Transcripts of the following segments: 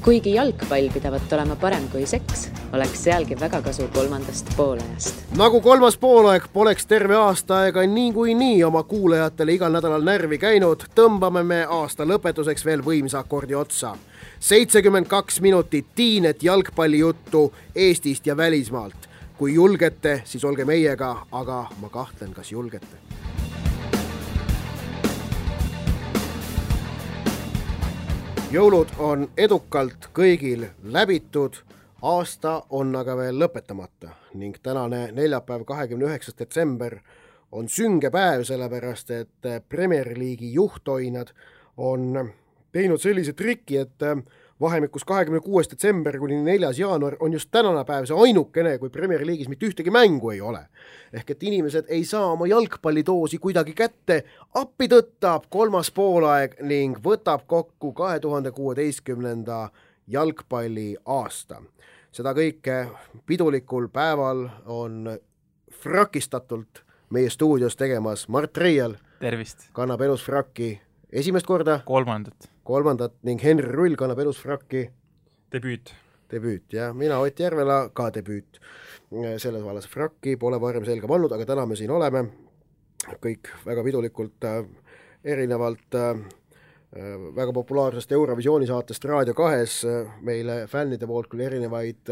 Kuigi jalgpall pidavat olema parem kui seks, oleks sealgi väga kasu kolmandast poolajast. Nagu kolmas poolaeg poleks terve aasta aega nii oma kuulajatele igal nädalal närvi käinud, tõmbame me aasta lõpetuseks veel võimsa akordi otsa. 72 minutit tiinet jalgpallijuttu Eestist ja välismaalt. Kui julgete, siis olge meiega, aga ma kahtlen, kas julgete. Jõulud on edukalt kõigil läbitud, aasta on aga veel lõpetamata ning tänane neljapäev 29. detsember on sünge päev, sellepärast et Premier League'i juhtoinad on teinud sellise triki, et vahemikus 26. detsember kuni 4. jaanuar on just tänane päev see ainukene, kui Premier League'is mitte ühtegi mängu ei ole. Ehk et inimesed ei saa oma jalgpallidoosi kuidagi kätte, appi tõttab kolmas poolaeg ning võtab kokku 2016. jalgpalli aasta. Seda kõike pidulikul päeval on frakistatult meie stuudios tegemas Mart Reial. Tervist! Kannab elus frakki esimest korda. Kolmandat ning Henri Rull kannab elus frakki. Debüüt, ja mina Ott Järvela ka debüüt. Selles vallas frakki pole varem selga pannud, aga täna me siin oleme. Kõik väga pidulikult erinevalt väga populaarsest Eurovisiooni saatest Raadio 2 meile fännide poolt küll erinevaid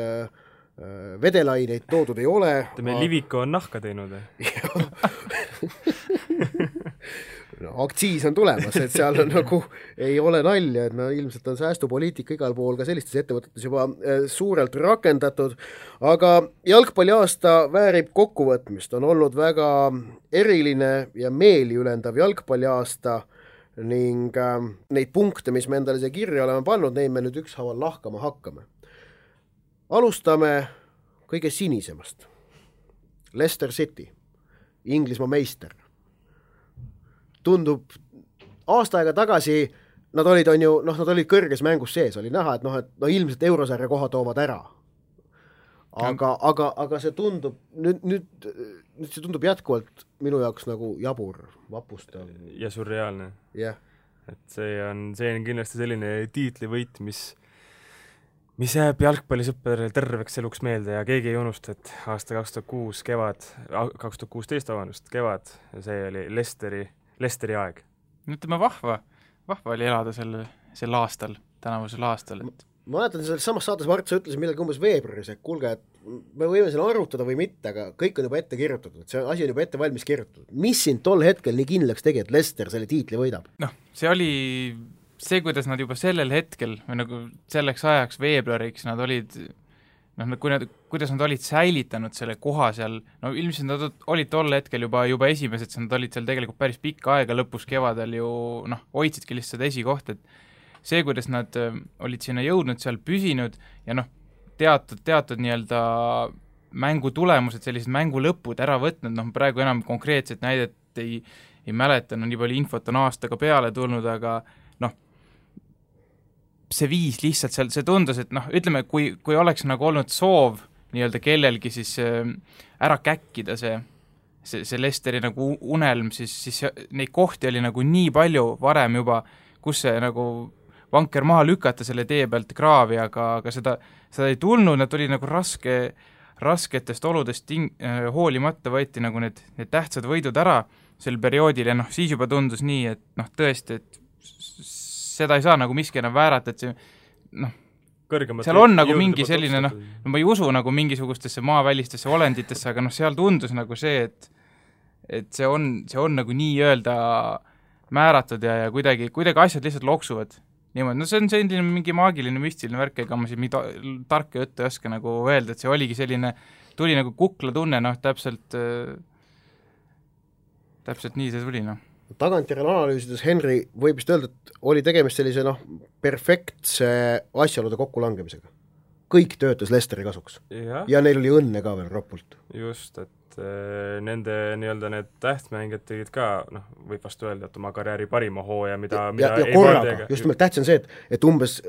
vedelaineid toodud ei ole. Meil Liviko on nahka teinud. No, aktsiis on tulemas, et seal on nagu ei ole nalja, et ilmselt on säästupoliitika igal pool ka sellistes ettevõtetes juba suurelt rakendatud, aga jalgpalli aasta väärib kokkuvõtmist, on olnud väga eriline ja meeliülendav jalgpalli aasta ning neid punkte, mis me endale siia kirja oleme pannud, neid me nüüd ükshaaval lahkama hakkame. Alustame kõige sinisemast. Leicester City, Inglismaa meister. Tundub aasta aega tagasi, nad olid kõrges mängus sees, oli näha, et ilmselt eurosarja koha toovad ära. Aga see tundub, nüüd see tundub jätkuvalt minu jaoks nagu jabur, vapustav. Ja surreaalne. Yeah. Et see on kindlasti selline tiitlivõit, mis jääb jalgpallisõpperil terveks eluks meelde ja keegi ei unusta, et aasta 2016 kevad, ja see oli Leicesteri aeg. Ütleme vahva oli elada sel aastal, tänavusel aastal. Ma mäletan, selles samas saates Mart, sa ütlesid millalgi umbes veebruaris, et kuulge, et me võime selle arutada või mitte, aga kõik on juba ette kirjutatud, et see asi on juba ette valmis kirjutatud. Mis sind tol hetkel nii kindlaks tegi, et Leicester selle tiitli võidab? See oli see, kuidas nad juba sellel hetkel või nagu selleks ajaks veebruariks nad olid kuidas nad olid säilitanud selle koha seal, ilmselt nad olid tol hetkel juba esimesed, nad olid seal tegelikult päris pikka aega, lõpus kevadel ju hoidsidki lihtsalt esikoht, et see, kuidas nad olid sinna jõudnud, seal püsinud ja teatud nii-öelda mängu tulemused, sellised mängu lõpud ära võtnud, praegu enam konkreetset näidet ei mäleta, nii palju infot on aastaga peale tulnud, aga see viis lihtsalt seal, see tundus, et ütleme, kui oleks nagu olnud soov nii-öelda kellelgi siis ära käkkida see Leicesteri nagu unelm, siis neid kohti oli nagu nii palju varem juba, kus see nagu vanker maha lükata selle tee pealt kraavi, aga seda ei tulnud, nad tuli nagu rasketest oludest hoolimata võeti nagu need tähtsad võidud ära sel perioodil ja siis juba tundus nii, et tõesti, et seda ei saa nagu miski enam väärata, et see seal on nagu mingi selline, ma ei usu nagu mingisugustesse maavälistesse olenditesse, aga seal tundus nagu see, et see on nagu nii-öelda määratud ja kuidagi asjad lihtsalt loksuvad. Niimoodi, see on selline mingi maagiline müstiline värk, ega ma siin tarka juttu ei oska nagu öelda, et see oligi selline, tuli nagu kukla tunne, täpselt nii see tuli, Tagantjärele analüüsides, Henri, võib vist öelda, et oli tegemist sellise perfektse asjaolude kokkulangemisega. Kõik töötas Leicesteri kasuks. Ja neil oli õnne ka veel ropult. Just, et nende nii-öelda need tähtsmängijad tegid ka, võib vastu öelda, et oma karjääri parima hooja, mida ei korraga, just nimelt tähtis on see, et umbes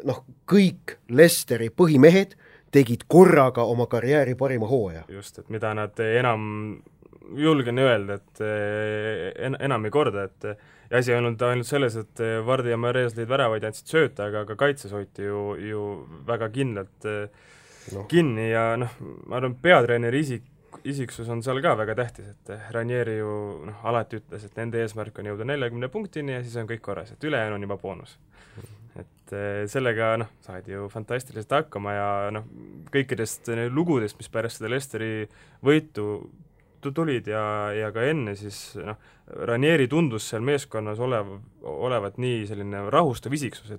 kõik Leicesteri põhimehed tegid korraga oma karjääri parima hooja. Just, et mida nad enam julgen öelda, et enam ei korda, et ja asi ei olnud ainult selles, et Vardi ja Mares lõid väravaid ja andsid sööta, aga ka kaitses hoiti ju väga kindlalt kinni ja ma arvan, peatreeneri isiksus on seal ka väga tähtis, et Ranieri ju alati ütles, et nende eesmärk on jõuda 40 punktini ja siis on kõik korras, et ülejäänu on juba boonus. Et sellega saadi ju fantastiliselt hakkama ja kõikidest lugudest, mis pärast seda Leicesteri võitu tulid ja ka enne, siis Ranieri tundus seal meeskonnas olevat nii selline rahustav isiksus,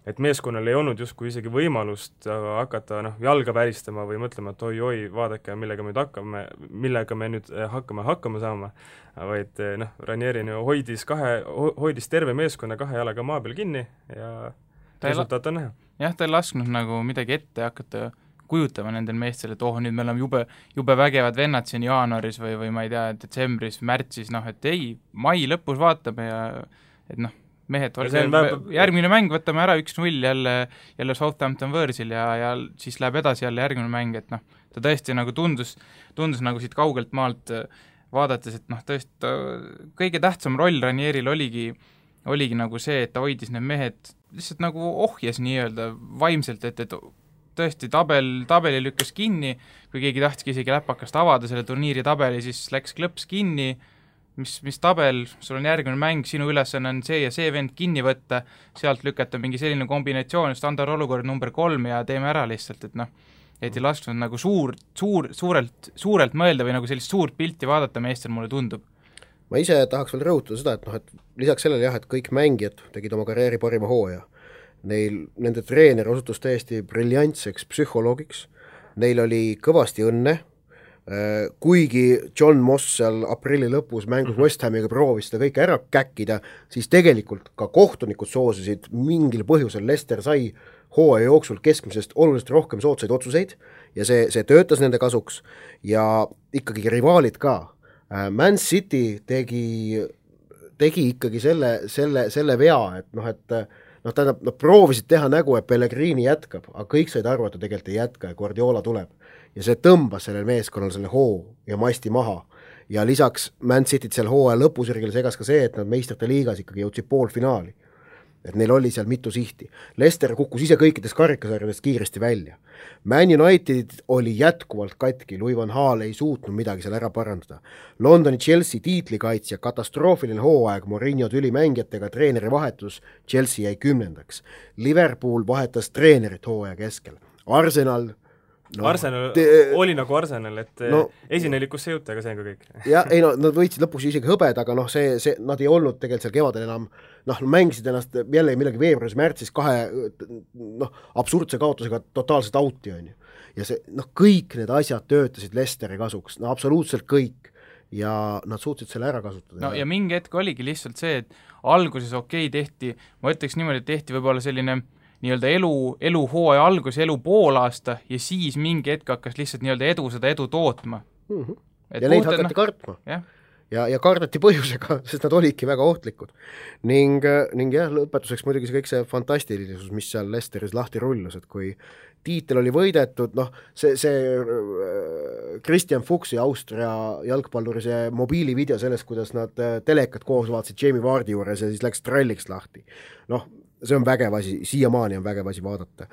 et meeskonnal ei olnud justkui isegi võimalust hakata jalga väristama või mõtlema, et oi, vaadake, millega me nüüd hakkama saama, vaid Ranieri hoidis terve meeskonna 2 jalaga maa peal kinni ja resultaat on näha. Jah, ta ei lasknud midagi ette hakata kujutama nendel meestel, et nüüd me oleme jube vägevad vennad siin jaanuaris või ma ei tea, detsembris, märtsis, et ei, mai lõpus vaatame ja et mehed, järgmine mäng võtame ära 1-0 jälle Southampton Võõrsil ja siis läheb edasi jälle järgmine mäng, et ta tõesti tundus siit kaugelt maalt vaadates, et tõesti kõige tähtsam roll Ranieril oligi see, et ta hoidis need mehed lihtsalt ohjes nii-öelda vaimselt, et tõesti tabeli lükkas kinni, kui keegi tahtiski isegi läpakast avada selle turniiri tabeli, siis läks klõps kinni, mis tabel, sul on järgmine mäng, sinu ülesanne on see ja see vend kinni võtta, sealt lükata mingi selline kombinatsioon, standardolukord number 3 ja teeme ära lihtsalt, et ei lasknud suurelt mõelda või sellist suurt pilti vaadata meestel, mulle tundub. Ma ise tahaks veel rõhutada seda, et lisaks sellele et kõik mängijad tegid oma karjääri parima hooaja. Nende treener osutus täiesti briljantseks psühholoogiks, neil oli kõvasti õnne, kuigi John Moss seal aprilli lõpus mängus West Hamiga proovis seda kõike ära käkkida, siis tegelikult ka kohtunikud soosisid mingil põhjusel. Leicester sai hooaja jooksul keskmisest oluliselt rohkem soodsaid otsuseid ja see töötas nende kasuks ja ikkagi rivaalid ka. Man City tegi ikkagi selle vea, et tähendab, nad proovisid teha nägu, et Pellegrini jätkab, aga kõik said aru, et ta tegelikult ei jätka ja Guardiola tuleb. Ja see tõmbas sellel meeskonnal selle hoo ja masti maha. Ja lisaks Man Cityt seal hooaja lõpusirgel segas ka see, et nad meistrite liigas ikkagi jõudsid poolfinaali. Et neil oli seal mitu sihti. Leicester kukkus ise kõikidest karikasarjadest kiiresti välja. Man United oli jätkuvalt katki, Louis van Gaal ei suutnud midagi seal ära parandada. Londoni Chelsea tiitlikaitsja, katastroofiline hooaeg, Mourinho tülimängijatega, treeneri vahetus, Chelsea jäi 10. Liverpool vahetas treenerit hooaja keskel. Arsenal oli nagu Arsenal, et esinelikusse jõuta, aga see on ka kõik. Nad võitsid lõpuks isegi hõbed, aga nad ei olnud tegelikult seal kevadel enam, mängisid ennast jälle millegi veebruaris, märtsis 2 absurdse kaotusega totaalselt auti on ju. Ja see, kõik need asjad töötasid Leicesteri kasuks, absoluutselt kõik. Ja nad suutsid selle ära kasutada. Ja mingi hetk oligi lihtsalt see, et alguses tehti, ma ütleks niimoodi, et tehti võib-olla selline nii-öelda elu hooaja algus, elu poolaasta ja siis mingi hetk hakkas lihtsalt nii-öelda edu tootma. Ja neid hakati kartma. Ja kardati põhjusega, sest nad olidki väga ohtlikud. Ning lõpetuseks muidugi kõik see fantastilisus, mis seal Leicesteris lahti rullus, et kui tiitel oli võidetud, see Christian Fuchsi Austria jalgpalluri see mobiilivideo sellest, kuidas nad telekat koos vaatasid Jamie Vardi juures ja siis läks tralliks lahti. See on vägev asi, siiamaani on vägev asi vaadata.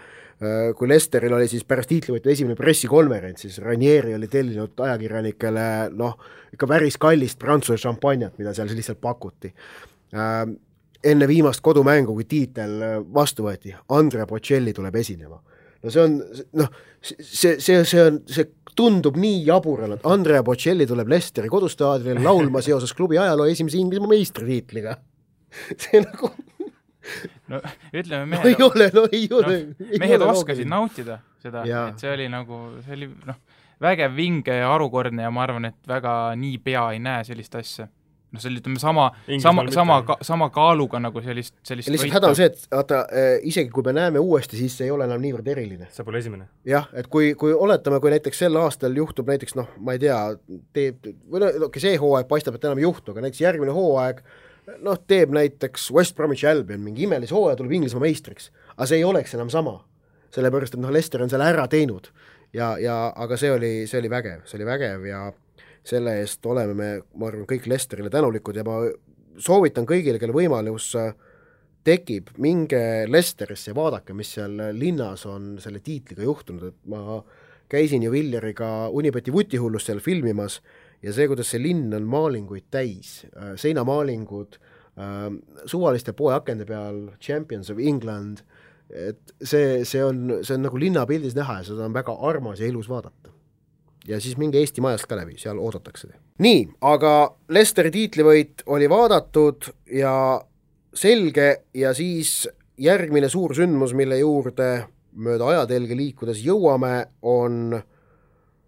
Kui Leicesteril oli siis pärast tiitlivõitu esimene pressikonverents, siis Ranieri oli tellinud ajakirjanikele ikka päris kallist Prantsuse šampanjat, mida seal lihtsalt pakuti. Enne viimast kodumängu, kui tiitel vastu võeti, Andrea Bocelli tuleb esinema. See tundub nii jaburana, et Andrea Bocelli tuleb Leicesteri kodustaadionil laulma seoses klubi ajaloo esimese Inglismaa meistritiitliga. See ütleme mehed oskasid nautida seda, et see oli vägev vinge ja harukordne ja ma arvan, et väga nii pea ei näe sellist asja. See oli sama kaaluga sellist lihtsalt häda on see, et isegi kui me näeme uuesti, siis see ei ole enam niivõrd eriline. See pole esimene. Jah, et kui oletame, kui näiteks sel aastal juhtub näiteks, ma ei tea, see hooaeg paistab, et enam ei juhtu, aga näiteks järgmine hooaeg teeb näiteks West Bromwich Albion mingi imelis hooaja, tuleb Inglismaa meistriks, aga see ei oleks enam sama, sellepärast, et Leicester on selle ära teinud aga see oli vägev ja selle eest oleme me, ma arvan, kõik Leicesterile tänulikud ja ma soovitan kõigile, kelle võimalus tekib, minge Leicesterisse ja vaadake, mis seal linnas on selle tiitliga juhtunud, et ma käisin ju Villeriga Unibeti vutihullust seal filmimas ja see, kuidas see linn on maalinguid täis, seinamaalingud, suvaliste poeakende peal, Champions of England, et see on nagu linnapildis näha ja seda on väga armas ja ilus vaadata. Ja siis minge Eesti majast ka läbi, seal oodatakse. Nii, aga Leicesteri tiitlivõit oli vaadatud ja selge ja siis järgmine suur sündmus, mille juurde mööda ajatelge liikudes jõuame, on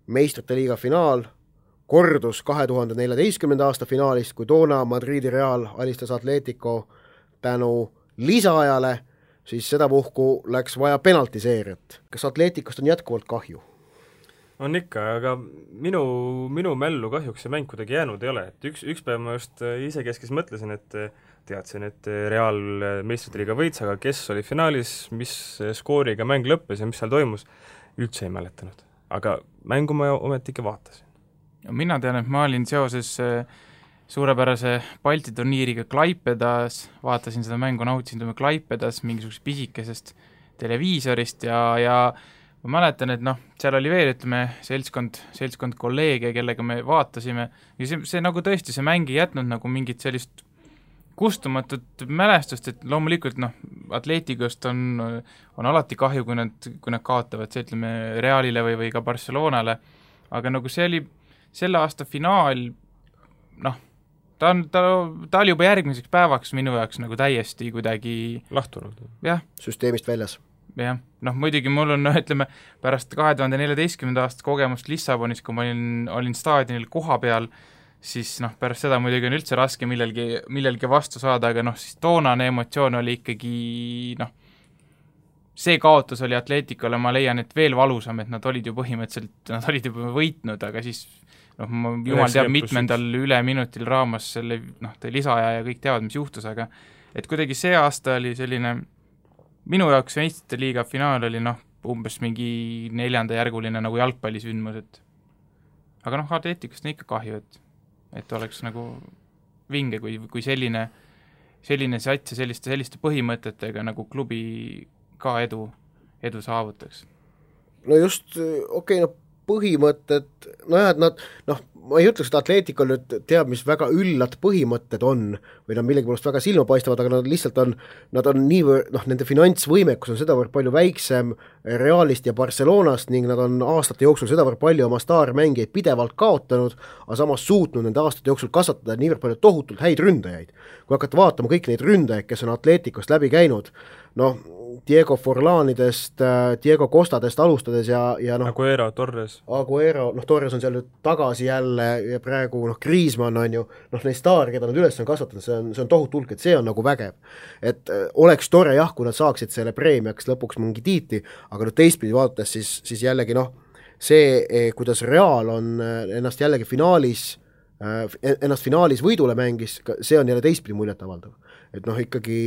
meistrite liiga finaal, kordus 2014. aasta finaalist, kui toona Madridi Real alistas Atletico tänu lisaajale, siis sedapuhku läks vaja penaltiseeriat. Kas Atleticost on jätkuvalt kahju? On ikka, aga minu mällu kahjuks see mäng kuidagi jäänud ei ole, et üks päev ma just isekeskis mõtlesin, et teadsin, et Real meistrite liiga võits, aga kes oli finaalis, mis skooriga mäng lõppes ja mis seal toimus, üldse ei mäletanud. Aga mängu ma ometi ikka vaatasin. Mina tean, et ma olin seoses suurepärase Balti turniiriga Klaipedas, vaatasin seda mängu, nautisin Klaipedas mingisugusest pisikesest televiisorist ja ma mäletan, et seal oli veel, ütleme, seltskond kolleege, kellega me vaatasime ja see nagu tõesti, see mäng ei jätnud nagu mingit sellist kustumatut mälestust, et loomulikult Atleticost on alati kahju, kui nad kaotavad, see ütleme Realile või ka Barcelonale, aga nagu see oli selle aasta finaal, ta oli juba järgmiseks päevaks minu jaoks nagu täiesti kuidagi lahtunud. Jah. Süsteemist väljas. Jah, muidugi mul on, ütleme, pärast 2014. aasta kogemust Lissabonis, kui ma olin staadionil koha peal, siis pärast seda muidugi on üldse raske millelgi vastu saada, aga siis toonane emotsioon oli ikkagi, see kaotus oli Atleticole, ma leian, et veel valusam, et nad olid ju põhimõtteliselt, nad olid juba võitnud, aga siis jumal teab mitmendal üle minutil raamas selle, lisaaja ja kõik teavad, mis juhtus, aga et kuidagi see aasta oli selline minu jaoks meistrite liiga finaal oli umbes mingi 4. järguline nagu jalgpallisündmus, et aga Atleticust on ikka kahju, et oleks nagu vinge, kui selline sats ja selliste põhimõtetega nagu klubi ka edu saavutaks. No just, põhimõtted, et nad, ma ei ütleks, et Atleticol nüüd teab, mis väga üllad põhimõtted on või nad millegipärast väga silma paistavad, aga nad lihtsalt nad on niivõrd, nende finantsvõimekus on sedavõrd palju väiksem Realist ja Barcelonast ning nad on aastate jooksul sedavõrd palju oma staarmängijaid pidevalt kaotanud, aga samas suutnud nende aastate jooksul kasvatada niivõrd palju tohutult häid ründajaid. Kui hakata vaatama kõik neid ründajaid, kes on Atleticost läbi käinud, Diego Forlanidest, Diego Costadest alustades ja Aguero, Torres, Torres on seal nüüd tagasi jälle ja praegu Griezmann on ju, neid staari, keda nad üles on kasvatanud, see on tohutu hulk, et see on nagu vägev. Et oleks tore jah, kui nad saaksid selle preemiaks lõpuks mingi tiitli, aga teistpidi vaadates siis jällegi see, kuidas Real on ennast jällegi finaalis võidule mängis, see on jälle teistpidi muljet avaldav. Et ikkagi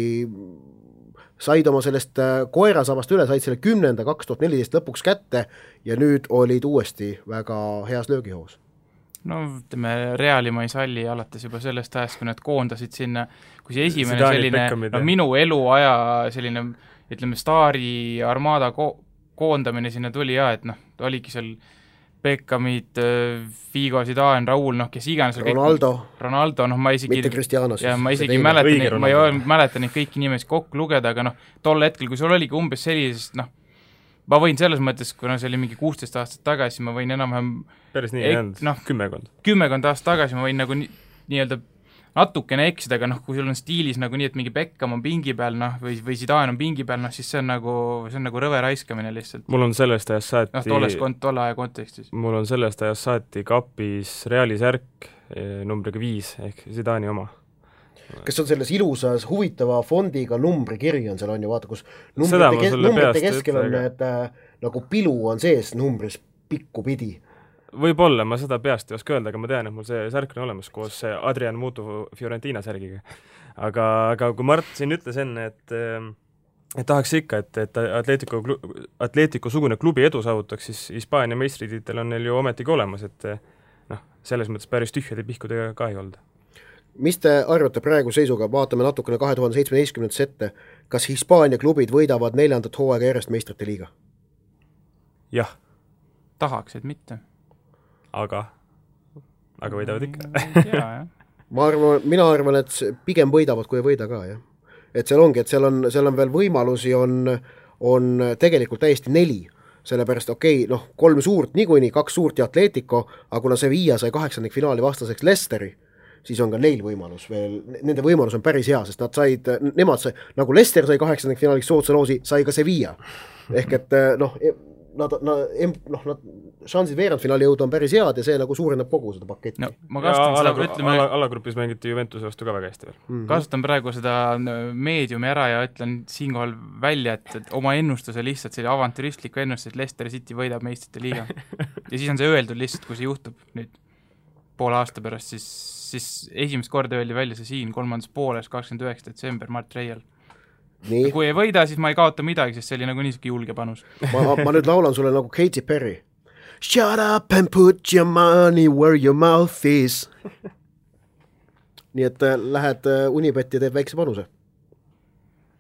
said oma sellest koerasabast üle, said selle 10. 2014 lõpuks kätte ja nüüd olid uuesti väga heas löögihoos. Ütleme, Reali ma ei salli alates juba sellest ajast, kui nad koondasid sinna, kui see esimene selline minu eluaja selline, ütleme, staari armada koondamine sinna tuli et oligi seal Beckhamid, Figo, Zidane, Raul, kes iganes Ronaldo, ma isegi mitte Cristianos. Ja ma isegi mäletan neid kõiki nimesi kokku lugeda, aga tol hetkel, kui sul oligi umbes sellisest, ma võin selles mõttes, kuna see oli mingi 16 aastat tagasi, ma võin enam-vähem päris nii jäänud, kümmekond aastat tagasi ma võin nagu nii-öelda natukene eksida, aga kui sul on stiilis nagu nii, et mingi Beckham on pingi peal, või Zidane on pingi peal, siis see on nagu rõve raiskamine lihtsalt. Mul on sellest ajast saati tolle aja kontekstis. Mul on sellest ajast saati kapis Reali särk numbriga 5 ehk Zidani oma. Kas on selles ilusas huvitava fondiga numbrikiri on seal on ju, vaata, kus numbrite keskel on need nagu pilu on sees numbris pikku pidi. Võib-olla, ma seda peast ei oska öelda, aga ma tean, et mul see särk on olemas koos Adrian Mutu Fiorentina särgiga. Aga kui Mart siin ütles enne, et tahaks ikka, et Atletico sugune klubi edu saavutaks, siis Hispaania meistritiitel on neil ju ometigi olemas, et selles mõttes päris tühjade pihkudega ka ei olnud. mis te arvate praegu seisuga, vaatame natukene 2017 ette, kas Hispaania klubid võidavad 4. hooaega järjest meistrite liiga? Jah. Tahaks, et mitte. Aga võidavad ikka. Jah. Mina arvan, et pigem võidavad, kui ei võida ka, jah. Et seal ongi, et seal on veel võimalusi, on tegelikult täiesti 4, sellepärast 3 suurt niikuinii, 2 suurt ja Atletico, aga kuna Sevilla sai 8. finaali vastaseks Leicesteri, siis on ka neil võimalus veel, nende võimalus on päris hea, sest nemad sai, nagu Leicester sai 8. finaaliks soodsa loosi, sai ka Sevilla. Ehk et nad šansid veerandfinaali jõuda on päris head ja see nagu suurendab kogu seda paketti. No, ma kasutan seda, alagrupis mängiti Juventuse vastu ka väga hästi veel. Kasutan praegu seda meediumi ära ja ütlen siinkohal välja, et oma ennustuse lihtsalt selle avantüristliku ennustuse, et Leicester City võidab meistrite liiga. Ja siis on see öeldud lihtsalt, kui see juhtub nüüd poole aasta pärast, siis esimest korda öeldi välja see siin 3. pooles 29. detsember Mart Reial. Nii. Kui ei võida, siis ma ei kaota midagi, sest see oli nagu niisugune julge panus. ma nüüd laulan sulle nagu Katy Perry. Shut up and put your money where your mouth is. Nii et lähed Unibet ja teed väikse panuse.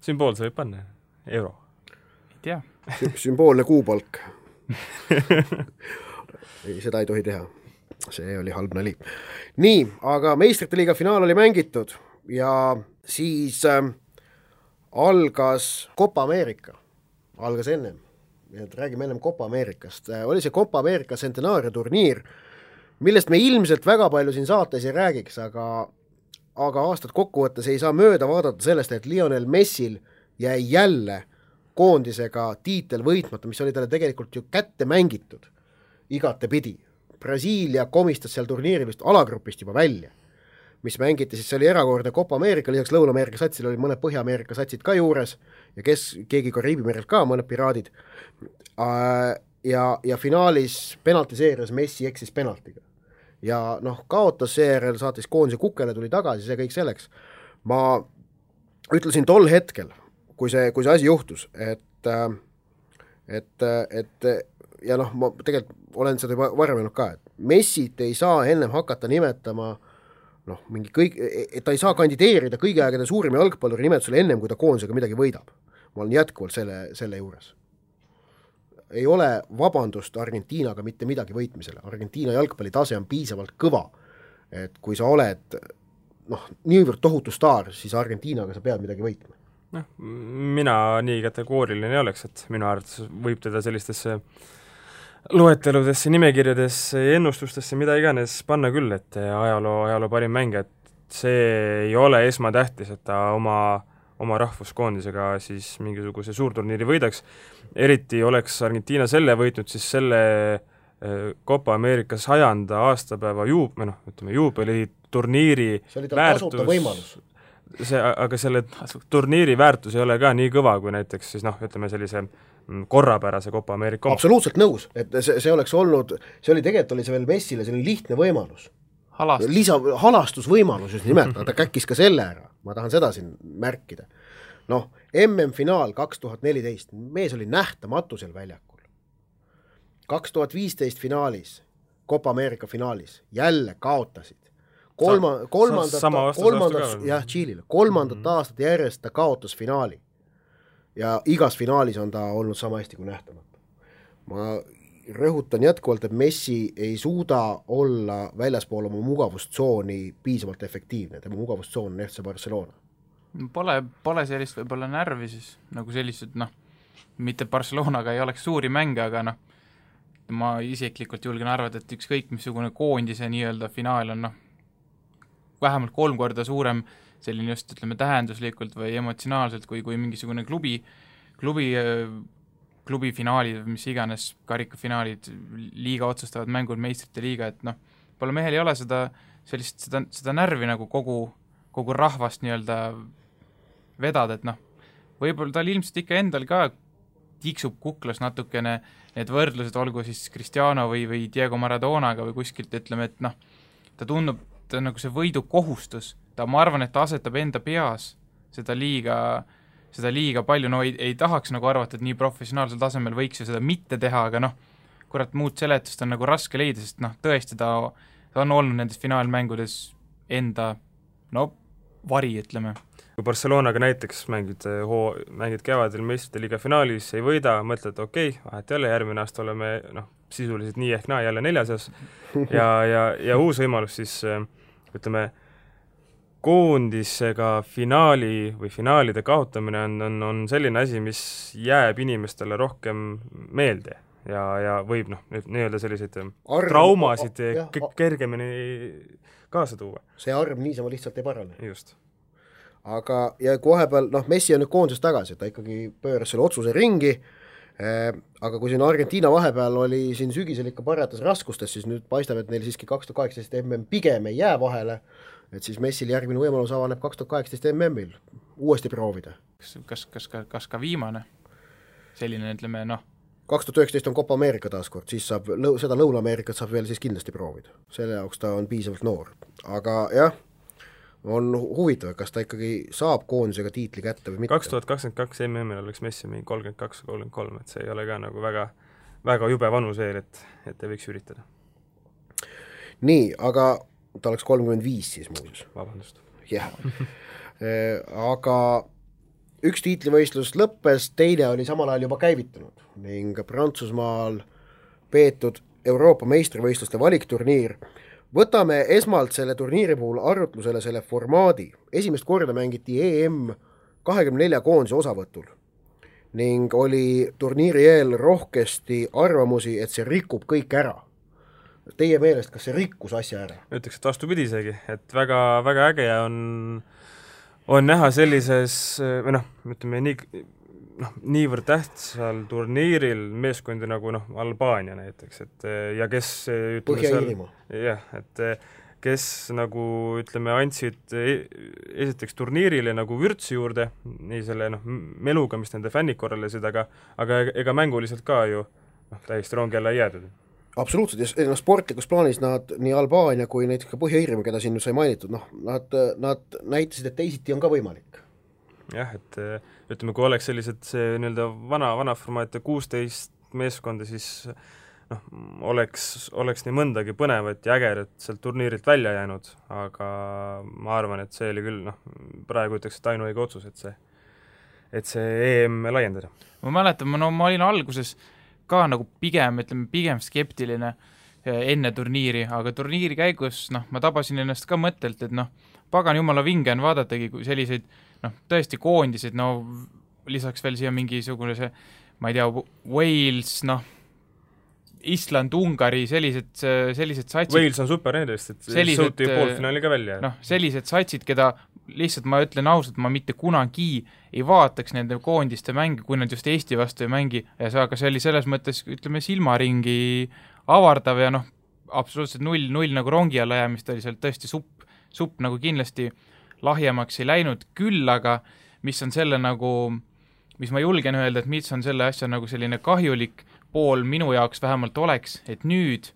Sümboolse võib panna. Euro. Ei tea. Sümboolne kuupalk. Seda ei tohi teha. See oli halb nali. Nii, aga meistrite liiga finaal oli mängitud ja siis algas Copa America, algas ennem, räägime ennem Copa Amerikast, oli see Copa America centenaaria turniir, millest me ilmselt väga palju siin saates ei räägiks, aga aastat kokkuvõttes ei saa mööda vaadata sellest, et Lionel Messil jäi jälle koondisega tiitel võitmata, mis oli talle tegelikult ju kätte mängitud igate pidi. Brasiilia komistas seal turniiril vist alagrupist juba välja, mis mängiti, siis see oli erakordne Copa America, lisaks Lõuna-Ameerika satsil oli mõned Põhja-Ameerika satsid ka juures ja keegi Kariibi merelt ka, mõned piraadid. Ja finaalis penaltiseerias Messi eksis penaltiga. Ja kaotas seejärel, saatis koondise kukele, tuli tagasi, see kõik selleks. Ma ütlesin tol hetkel, kui see asi juhtus, et ja ma tegelikult olen seda juba varem ka, et Messit ei saa ennem hakata nimetama et ta ei saa kandideerida kõigi aegade suurima jalgpalluri nimetusele ennem, kui ta koondisega midagi võidab. Ma olen jätkuvalt selle juures. Ei ole vabandust Argentiinaga mitte midagi võitmisele. Argentiina jalgpalli tase on piisavalt kõva, et kui sa oled niivõrd tohutu staar, siis Argentiinaga sa pead midagi võitma. Mina nii kategooriline ei oleks, et minu arvates võib teda sellistesse loeteludesse, nimekirjadesse, ennustustesse, mida iganes panna küll, et ajaloo parim mängija, et see ei ole esmatähtis, et ta oma rahvuskoondisega siis mingisuguse suurturniiri võidaks. Eriti oleks Argentiina selle võitnud, siis selle Copa America 100. aastapäeva juubeli turniiri see oli tal tasuta võimalus. Aga selle turniiri väärtus ei ole ka nii kõva, kui näiteks siis sellise korrapärase Copa America. Absoluutselt nõus, et see oleks olnud, see oli veel Messile, see oli lihtne võimalus. Halastusvõimalus just nimelt, ta käkkis ka selle ära, ma tahan seda siin märkida. MM-finaal 2014, mees oli nähtamatu seal väljakul. 2015 finaalis, Copa America finaalis, jälle kaotasid. Kolmandat aastat järjest ta kaotas finaali. Ja igas finaalis on ta olnud sama hästi kui nähtamata. Ma rõhutan jätkuvalt, et Messi ei suuda olla väljaspool oma mugavustsooni piisavalt efektiivne. Tema mugavustsoon on FC Barcelona. Pole sellist võib-olla närvi siis, nagu sellised, mitte Barcelonaga ei oleks suuri mänge, aga ma isiklikult julgen arvata, et ükskõik missugune koondise nii-öelda finaal on vähemalt 3 korda suurem selline just, tähenduslikult või emotsionaalselt kui mingisugune klubi finaalid, mis iganes karikafinaalid, liiga otsustavad mängud, meistrite liiga, et pole mehel ei ole seda närvi nagu kogu rahvast nii-öelda vedada, et võib-olla tal ilmselt ikka endal ka tiksub kuklas natukene need võrdlused, olgu siis Cristiano või Diego Maradonaga või kuskilt, ütleme, et ta tundub, ta nagu see võidukohustus, ma arvan, et ta asetab enda peas seda liiga palju, ei tahaks nagu arvata, et nii professionaalsel tasemel võiks ju seda mitte teha, aga kurat, muud seletust on nagu raske leida, sest tõesti ta on olnud nendes finaalmängudes enda no vari, ütleme. Kui Barcelonaga näiteks mängid kevadel meistrite liiga finaalis, ei võida, mõtled, okei, vahet jälle, järgmine aasta oleme sisuliselt nii ehk naa jälle 4. ja uus võimalus siis, ütleme, koondisega finaali või finaalide kaotamine on selline asi, mis jääb inimestele rohkem meelde ja võib nii-öelda selliseid traumasid kergemini kaasa tuua. See arv niisama lihtsalt ei parane. Just. Aga ja kui vahepeal, Messi on nüüd koondises tagasi, ta ikkagi pööras selle otsuse ringi, aga kui siin Argentiina vahepeal oli siin sügisel ikka parjatas raskustes, siis nüüd paistab, et neil siiski 2018 MM pigem ei jää vahele, et siis Messil järgmine võimalus avaneb 2018 MM-il uuesti proovida. Kas ka viimane? Selline, ütleme, 2019 on Copa America taaskord, siis saab seda Lõuna-Ameerikat saab veel siis kindlasti proovida. Selle jaoks ta on piisavalt noor. Aga jah, on huvitav, kas ta ikkagi saab koondisega tiitli kätte või mitte. 2022 MM-il oleks Messi 32-33, et see ei ole ka nagu väga, väga jube vanus veel, et ei võiks üritada. Nii, aga ta oleks 35 siis muuseas. Vabandust. Jah. Aga üks tiitlivõistlus lõppes, teine oli samal ajal juba käivitunud ning Prantsusmaal peetud Euroopa meistrivõistluste valikturniir. Võtame esmalt selle turniiri puhul arutlusele selle formaadi. Esimest korda mängiti EM 24 koondise osavõtul ning oli turniiri eel rohkesti arvamusi, et see rikub kõik ära. Teie meelest, kas see rikkus asja ära? Ütleks, et vastupidi isegi, et väga, väga äge on näha sellises, ütleme niivõrd tähtsal turniiril meeskondi nagu Albaania näiteks, et ja kes Põhja-Iirimaa. Jah, et kes nagu ütleme andsid esiteks turniirile nagu vürtsi juurde, nii selle meluga, mis nende fännid korralesid, aga ega mänguliselt ka ju täiesti rongi alla ei jäädud. Absoluutselt, ja sportlikus plaanis nad nii Albaania kui näiteks ka Põhja-Iirimaa, keda siin sai mainitud, nad näitasid, et teisiti on ka võimalik. Jah, et ütleme, kui oleks sellised see nii-öelda vana formaat 16 meeskonda, siis oleks nii mõndagi põnevat ja ägerat sealt turniirilt välja jäänud, aga ma arvan, et see oli küll, praegu ütleks, et ainuõige otsus, et see EM laiendada. Ma mäletan, ma olin alguses ka nagu pigem skeptiline enne turniiri, aga turniiri käigus, ma tabasin ennast ka mõttelt, et pagan jumala vinge on vaadatagi selliseid, tõesti koondised, lisaks veel siia mingisugune see, ma ei tea, Wales, Island, Ungari, sellised satsid. Wales on super nendest, et sõuti poolfinaali ka välja. Sellised satsid, keda lihtsalt ma ütlen ausalt, ma mitte kunagi ei vaataks nende koondiste mänge, kui nad just Eesti vastu ei mängi, aga see oli selles mõttes, ütleme, silmaringi avardav ja absoluutselt null nagu rongi alla jäämist oli seal tõesti supp nagu kindlasti lahjemaks ei läinud, küll aga mis on selle nagu, mis ma julgen öelda, et mis on selle asja nagu selline kahjulik pool minu jaoks vähemalt oleks, et nüüd,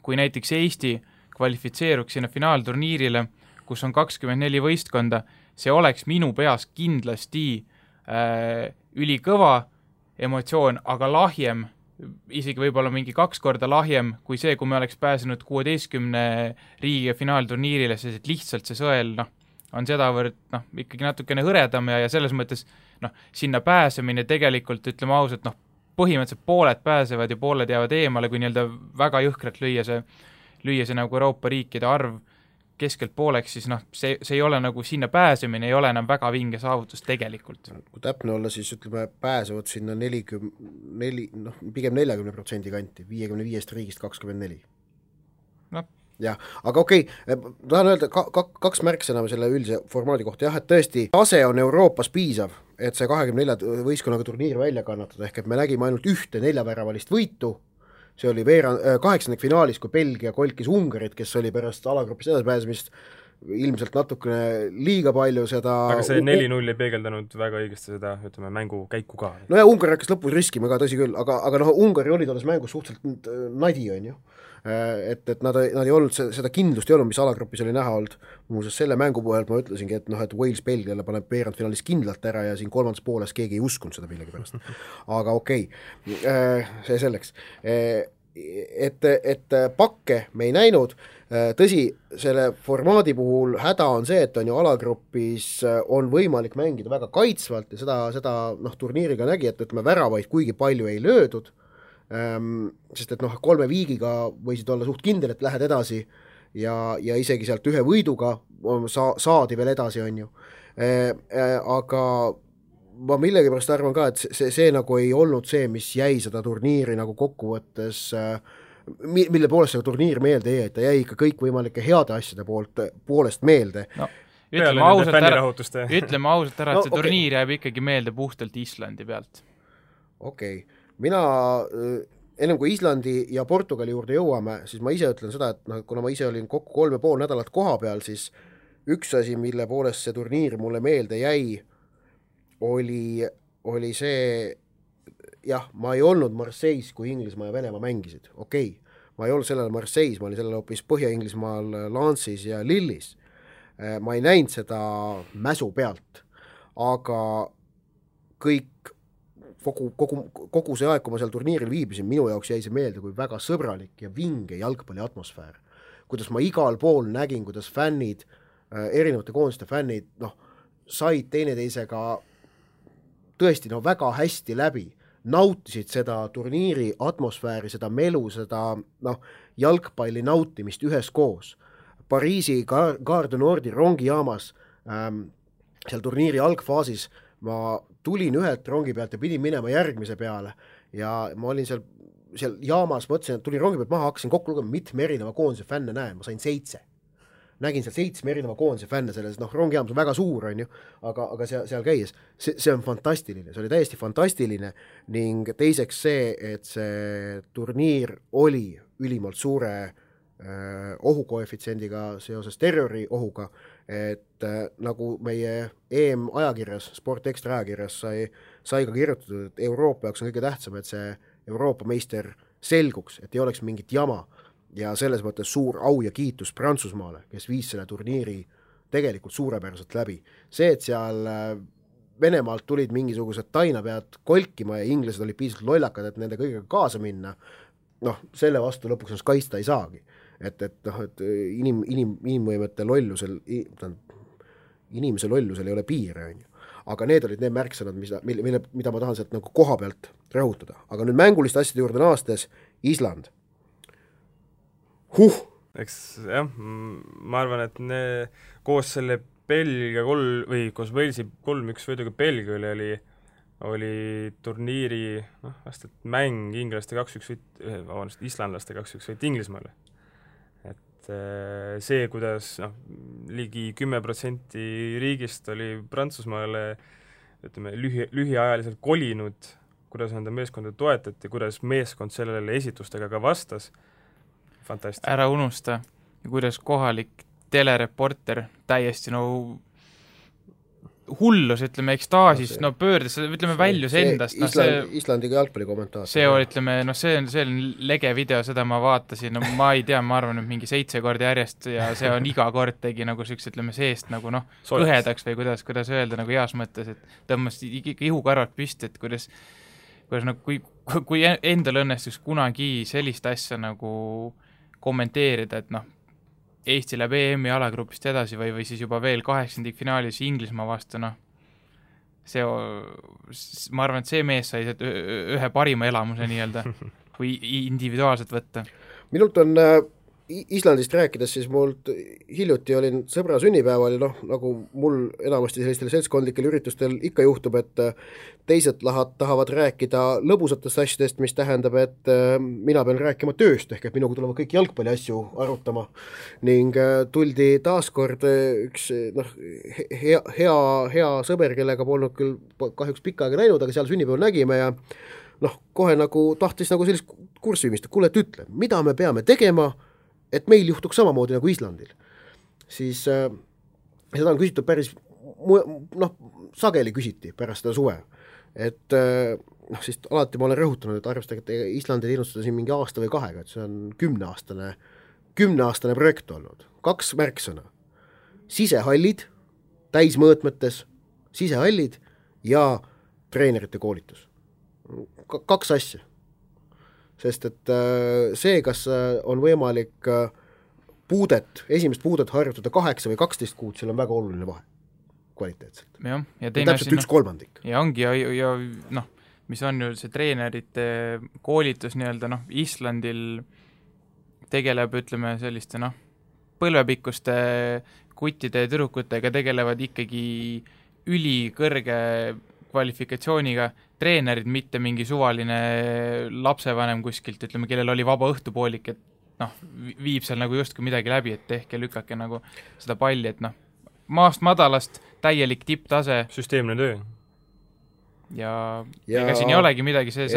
kui näiteks Eesti kvalifitseeruks sinna finaalturniirile, kus on 24 võistkonda, see oleks minu peas kindlasti ülikõva emotsioon, aga lahjem, isegi võib-olla mingi 2 korda lahjem kui see, kui me oleks pääsenud 16 riigi finaalturniirile, sest et lihtsalt see sõel on sedavõrd ikkagi natukene hõredam ja selles mõttes sinna pääsemine tegelikult, ütleme ausalt, põhimõtteliselt pooled pääsevad ja pooled jäävad eemale, kui nii-öelda väga jõhkralt lüüa see nagu Euroopa riikide arv keskelt pooleks, siis see ei ole nagu sinna pääsemine, ei ole enam väga vinge saavutus tegelikult. Kui täpne olla, siis ütleme, pääsevad sinna pigem 40% kanti, 55 riigist 24. Jah, aga okei, tahan öelda kaks märksõna selle üldise formaadi kohta, et tõesti, tase on Euroopas piisav, et see 24 võistkonnaga turniir välja kannatada, ehk et me nägime ainult 1 4-väravalist võitu, see oli 8. finaalis, kui Belgia kolkis Ungarit, kes oli pärast alagrupis edasipääsemist ilmselt natukene liiga palju seda... Aga see 4-0 ei peegeldanud väga õigesti seda, ütleme, mängu käiku ka. No ja Ungari hakkas lõpus riskima ka, tõsi küll, aga Ungari oli tolles mängus suhteliselt nadi, on ju. Et nad ei olnud, seda kindlust ei olnud, mis alagrupis oli näha olnud. Muuseas, selle mängu puhult ma ütlesingi, et Wales Belgiale paneb veerandfinaalis kindlalt ära ja siin kolmandas pooles keegi ei uskunud seda millegi pärast. Aga okei, see selleks. et pakke me ei näinud, tõsi, selle formaadi puhul häda on see, et on ju alagrupis on võimalik mängida väga kaitsvalt ja seda turniiriga nägi, et ütleme väravaid kuigi palju ei löödud, sest et 3 viigiga võisid olla suht kindel, et lähed edasi ja isegi sealt 1 võiduga saadi veel edasi, on ju. Aga ma millegipärast arvan ka, et see nagu ei olnud see, mis jäi seda turniiri nagu kokkuvõttes, mille poolest seda turniir meelde jäi, et ta jäi ikka kõikvõimalike heade asjade poolest meelde. No, ütleme ausalt ära, et see turniir jääb ikkagi meelde puhtalt Islandi pealt. Okei. Mina, ennem kui Islandi ja Portugali juurde jõuame, siis ma ise ütlen seda, et kuna ma ise olin kokku 3,5 nädalat koha peal, siis üks asi, mille poolest see turniir mulle meelde jäi, oli see, jah, ma ei olnud Marseilles, kui Inglismaa ja Venemaa mängisid, okei. Ma ei olnud sellel Marseilles, ma olin sellel hoopis Põhja-Inglismaal Lance'is ja Lillis. Ma ei näinud seda mäsu pealt, aga kogu see aeg, kui ma seal turniiril viibisin, minu jaoks jäi see meelde kui väga sõbralik ja vinge jalgpalli atmosfäär. Kuidas ma igal pool nägin, kuidas fännid, erinevate koondiste fännid, said teineteisega tõesti väga hästi läbi, nautisid seda turniiri atmosfääri, seda melu, seda jalgpalli nautimist üheskoos. Pariisi Gare du Nordi rongijaamas seal turniiri algfaasis ma tulin ühelt rongi pealt ja pidin minema järgmise peale ja ma olin seal jaamas, mõtlesin, et tulin rongi pealt maha, hakkasin kokku lugema, mitme erineva koondise fänne näen, ma sain 7. Nägin seal 7 erineva koondise fänne selles, rongijaamas on väga suur, on ju, aga seal käies, see on fantastiline, see oli täiesti fantastiline ning teiseks see, et see turniir oli ülimalt suure ohukoefitsiendiga seoses terroriohuga, et nagu meie EM ajakirjas, Sport Extra ajakirjas sai ka kirjutatud, et Euroopa jaoks on kõige tähtsam, et see Euroopa meister selguks, et ei oleks mingit jama ja selles mõttes suur au ja kiitus Prantsusmaale, kes viis selle turniiri tegelikult suurepäraselt läbi. See, et seal Venemaalt tulid mingisugused tainapead kolkima ja inglased olid piisavalt lollakad, et nende kõigega kaasa minna, selle vastu lõpuks ennast kaitsta ei saagi. Et inimvõimete lollusel, inimese lollusel ei ole piire, on ju. Aga need olid need märksõnad, mida ma tahan sealt nagu koha pealt rõhutada. Aga nüüd mänguliste asjade juurde naastes, Island. Eks jah, ma arvan, et koos selle Belgia koos Walesi 3-1 võiduga Belgia oli turniiri vast, et mäng inglaste 2-1 islandlaste 2-1 võit Inglismaale. Et see, kuidas ligi 10% riigist oli Prantsusmaale ütleme, lühiajaliselt kolinud, kuidas enda meeskonda toetati, kuidas meeskond sellele esitustega ka vastas. Fantastic. Ära unusta, kuidas kohalik telereporter täiesti hullus, ütleme, ekstaasis, pöördes, ütleme, väljus endast. Islandiga jalgpallikommentaar. See on lege video, seda ma vaatasin, ma ei tea, ma arvan, et mingi 7 korda järjest ja see on iga kord tegi nagu süks, ütleme, seest nagu kõhedaks või kuidas öelda nagu heas mõttes, et tõmmas ihukarvad püsti, et kuidas nagu, kui endal õnnestus kunagi sellist asja nagu kommenteerida, et Eesti läheb EM-i alagrupist edasi või siis juba veel 8. finaalis Inglismaa vastu, ma arvan, et see mees sai ühe parima elamuse nii-öelda, kui individuaalselt võtta. Minult on Islandist rääkides, siis mult hiljuti olin sõbra sünnipäeval ja nagu mul enamasti sellistel seltskondlikel üritustel ikka juhtub, et teised tahavad rääkida lõbusatest asjadest, mis tähendab, et mina pean rääkima tööst, ehk et minuga tulevad kõik jalgpalli asju arutama ning tuldi taaskord üks hea sõber, kellega polnud küll kahjuks pikka aega näinud, aga seal sünnipäeval nägime ja kohe nagu tahtis nagu sellist kurssi viimist, kuule, et ütle, mida me peame tegema, et meil juhtuks samamoodi nagu Islandil. Siis seda on küsitud päris, sageli küsiti pärast seda suve. Et siis alati ma olen rõhutanud, et arvestage, et Islandil innustada siin mingi aasta või 2, et see on 10-aastane projekt olnud. 2 märksõna. Sisehallid, täismõõtmetes, sisehallid ja treenerite koolitus. 2 asja. sest et see, kas on võimalik esimest puudet harjutada 8 või 12 kuud, seal on väga oluline vahe kvaliteetselt. Jah, ja teine täpselt 1/3. Ja ongi, ja noh, mis on ju see treenerite koolitus nii-öelda, Islandil tegeleb, ütleme, selliste, põlvepikkuste kuttide ja tüdrukutega tegelevad ikkagi ülikõrge kvalifikatsiooniga treenerid, mitte mingi suvaline lapsevanem kuskilt, ütleme, kellel oli vaba õhtupoolik, et viib seal nagu justkui midagi läbi, et tehke, lükake nagu seda palli, et maast madalast täielik tipptase. Süsteemne töö. Ja ega siin ei olegi midagi, see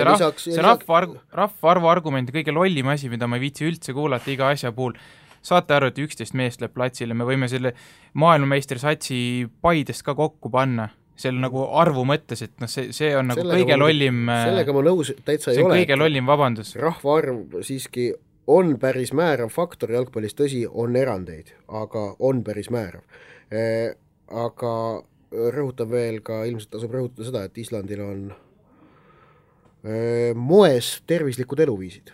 rahvaarvu argument ja kõige lollim asi, mida ma ei viitsi üldse kuulata iga asja puhul. Saate aru, et 11 meest läheb platsile, me võime selle maailmameistersatsi Paidest ka kokku panna, selle nagu arvu mõttes, et see on nagu kõige lollim, sellega ma nõus täitsa ei ole. See on kõige lollim vabandus. Rahvaarv siiski on päris määrav faktor jalgpallis, tõsi, on erandeid, aga on päris määrav. Aga rõhutan veel ka, ilmselt tasub rõhutada seda, et Islandil on moes tervislikud eluviisid.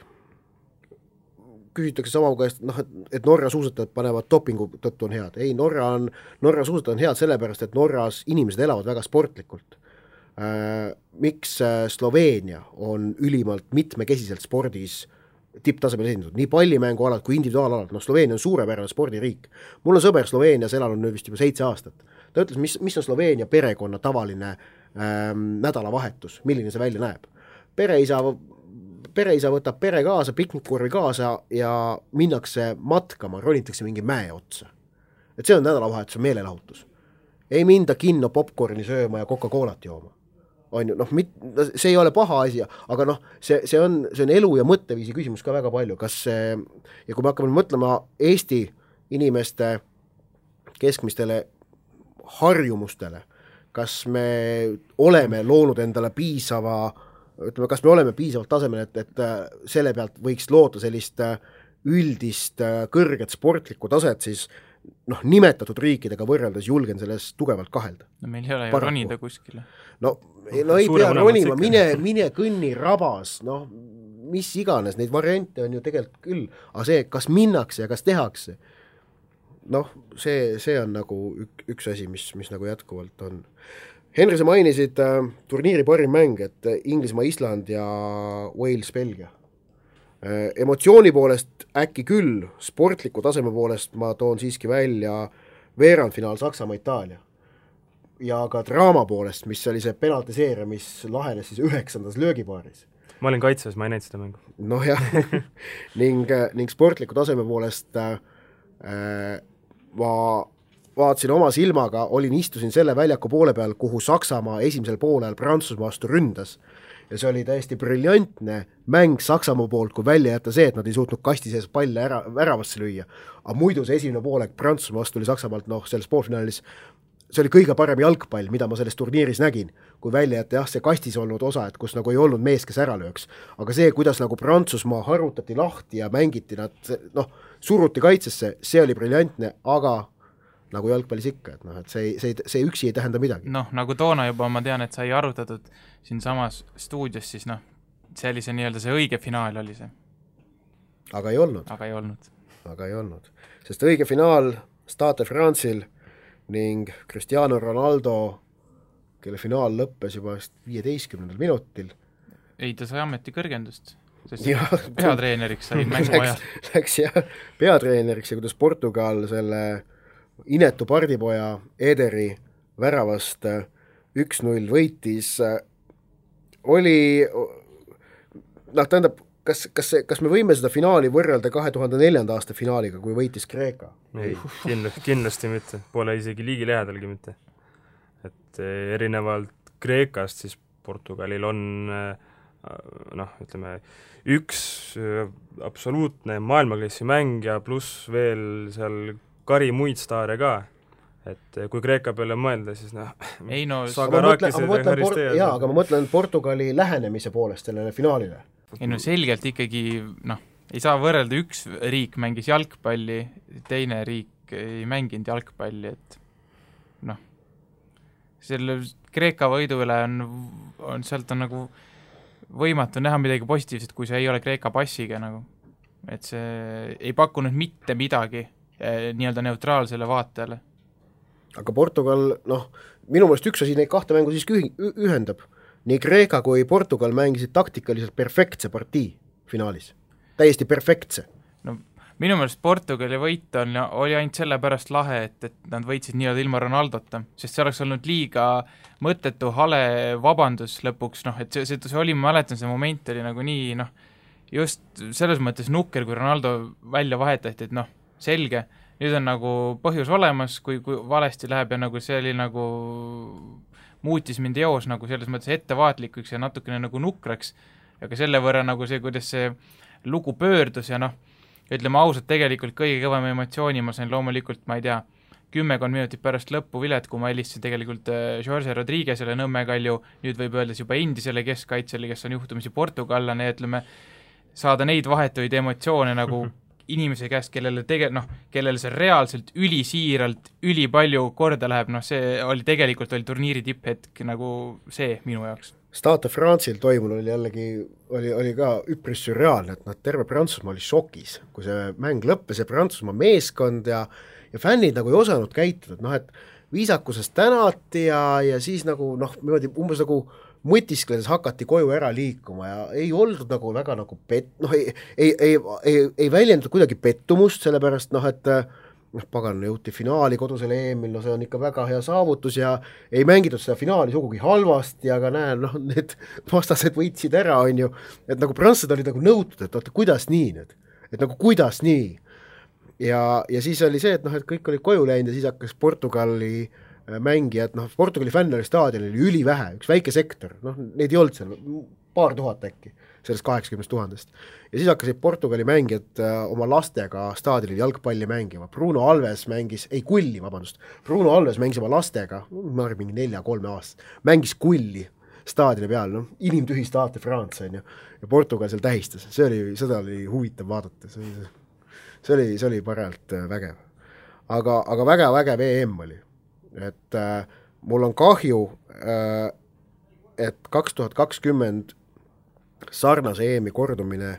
Küsitakse sama käest, et Norra suusatajad panevad dopingu tõttu on head. Ei, Norra suusatajad on head sellepärast, et Norras inimesed elavad väga sportlikult. Miks Sloveenia on ülimalt mitmekesiselt spordis tipptasemel esindatud, nii pallimängualad kui individuaalalad, Sloveenia on suurepärane spordiriik. Mul on sõber Sloveenias elanud nüüd vist juba 7 aastat. Ta ütles, mis on Sloveenia perekonna tavaline nädalavahetus, milline see välja näeb. Pereisa võtab pere kaasa, piknikkurvi kaasa ja minnakse matkama, ronitakse mingi mäe otsa. Et see on nädalavahetus, meelelahutus. Ei minda kinno popcorni sööma ja Coca-Colat jooma. On ju, see ei ole paha asi, aga see on elu ja mõtteviisi küsimus ka väga palju. Ja kui me hakkame mõtlema Eesti inimeste keskmistele harjumustele, kas me oleme loonud endale kas me oleme piisavalt tasemel, et selle pealt võiks loota sellist üldist kõrget sportlikku taset, siis nimetatud riikidega võrreldes julgen selles tugevalt kahelda. Meil ei ole ju ronida kuskile. Ei pea ronima, mine kõnni rabas, mis iganes, neid variante on ju tegelikult küll, aga see, kas minnakse ja kas tehakse, see on nagu üks asi, mis nagu jätkuvalt on. Henri, sa mainisid turniiri parim mäng, et Inglismaa, Island ja Wales, Belgia. Emotsiooni poolest äkki küll, sportliku taseme poolest ma toon siiski välja veerandfinaal Saksamaa, Itaalia. Ja ka draama poolest, mis oli see penaltiseeria, mis lahenes siis 9. löögipaaris. Ma olin kaitses, ma ei näinud seda mängu. Jah, ning sportliku taseme poolest ma vaatasin oma silmaga, istusin selle väljaku poole peal, kuhu Saksamaa esimesel poolel Prantsusmaa vastu ründas. Ja see oli täiesti briljantne mäng Saksamaa poolt, kui välja jätta see, et nad ei suutnud kasti sees palle väravasse lüüa. Aga muidu see esimene poolek Prantsusmaa vastu oli Saksamaalt, selles poolfinaalis, see oli kõige parem jalgpall, mida ma selles turniiris nägin, kui välja jätta see kastis olnud osa, et kus nagu ei olnud mees, kes ära lööks. Aga see, kuidas nagu Prantsusmaa harutati lahti ja mängiti nad, suruti kaitsesse, see oli briljantne, aga nagu jalgpallis ikka, et see üksi ei tähenda midagi. Nagu toona juba ma tean, et sai arutatud siin samas stuudios, siis see oli see nii-öelda see õige finaal oli see. Aga ei olnud. Aga ei olnud. Sest õige finaal Stade France'il ning Cristiano Ronaldo, kelle finaal lõppes juba 15. minutil. Ei, ta sai ameti kõrgendust, sest peatreeneriks sai mängu ajal. Läks peatreeneriks ja kuidas Portugal selle inetu pardipoja Ederi väravast 1-0 võitis, oli, tähendab, kas me võime seda finaali võrrelda 2004. aasta finaaliga, kui võitis Kreeka? Ei, kindlasti mitte, pole isegi liigi lähedalgi mitte. Et erinevalt Kreekast, siis Portugalil on ütleme, üks absoluutne maailmaklassi mäng ja pluss veel seal kari muid staare ka, et kui Kreeka peale mõelda, siis aga ma mõtlen Portugali lähenemise poolest sellele finaalile. Selgelt ikkagi, ei saa võrrelda, üks riik mängis jalgpalli, teine riik ei mänginud jalgpalli, et selle Kreeka võidu üle on sealt on nagu võimatu näha midagi positiivset, kui see ei ole Kreeka passiga nagu. Et see ei pakkunud mitte midagi nii-öelda neutraalsele vaatajale. Aga Portugal, minu meelest üks asi neid kahte mängu siiski ühendab. Nii Kreeka kui Portugal mängisid taktikaliselt perfektse partii finaalis. Täiesti perfektse. No minu meelest Portugali võit oli ainult sellepärast lahe, et nad võitsid nii-öelda ilma Ronaldota, sest see oleks olnud liiga mõttetu, hale vabandus lõpuks, et see oli, ma mäletan, see moment oli nagu nii, just selles mõttes nukker, kui Ronaldo välja vahetati, et selge, nüüd on nagu põhjus olemas, kui valesti läheb ja nagu see oli nagu muutis mind eos nagu selles mõttes ettevaatlikuks ja natukene nagu nukraks, aga selle võrra nagu see, kuidas see lugu pöördus ja ütleme ausalt, tegelikult kõige kõvem emotsiooni ma sain loomulikult, ma ei tea, 10 minutit pärast lõppu vilet, kui ma helistasin tegelikult Jorge Rodriguezele Nõmme-Kalju, nüüd võib öeldes juba endisele keskkaitsele, kes on juhtumisi portugallane, ütleme, saada neid vahetuid emotsioone nagu inimese käest, kellele see reaalselt ülisiiralt, ülipalju korda läheb, see oli tegelikult turniiri tipphetk nagu see minu jaoks. Stade France'il toimul oli jällegi, oli ka üpris sürreaalne, et terve Prantsusmaa oli šokis, kui see mäng lõppes ja Prantsusmaa meeskond ja fännid nagu ei osanud käituda, et viisakusest tänati ja siis nagu umbes nagu mõtiskledes hakati koju ära liikuma ja ei oldud nagu väga nagu ei väljendatud kuidagi pettumust, sellepärast et pagan jõuti finaali kodusel EM-il, see on ikka väga hea saavutus ja ei mängitud seda finaali sugugi halvasti, aga need vastased võitsid ära, on ju, et nagu prantslased olid nagu nõutud, et oota, kuidas nii nüüd, et nagu kuidas nii ja siis oli see, et kõik olid koju läinud ja siis hakkas Portugali mängijad, Portugali fänn oli staadionil ülivähe, üks väike sektor, neid ei olnud seal, paar tuhat äkki, sellest 80 000. Ja siis hakkasid Portugali mängijad oma lastega staadionil jalgpalli mängima. Bruno Alves mängis oma lastega, ma arvan, mingi 4-3 aastat, mängis kulli staadioni peal, inimtühi Stade France, on ju, ja Portugal seal tähistas, seda oli huvitav vaadata, see oli parajalt vägev. Aga vägev EM oli. Et mul on kahju, et 2020 sarnase EM-i kordumine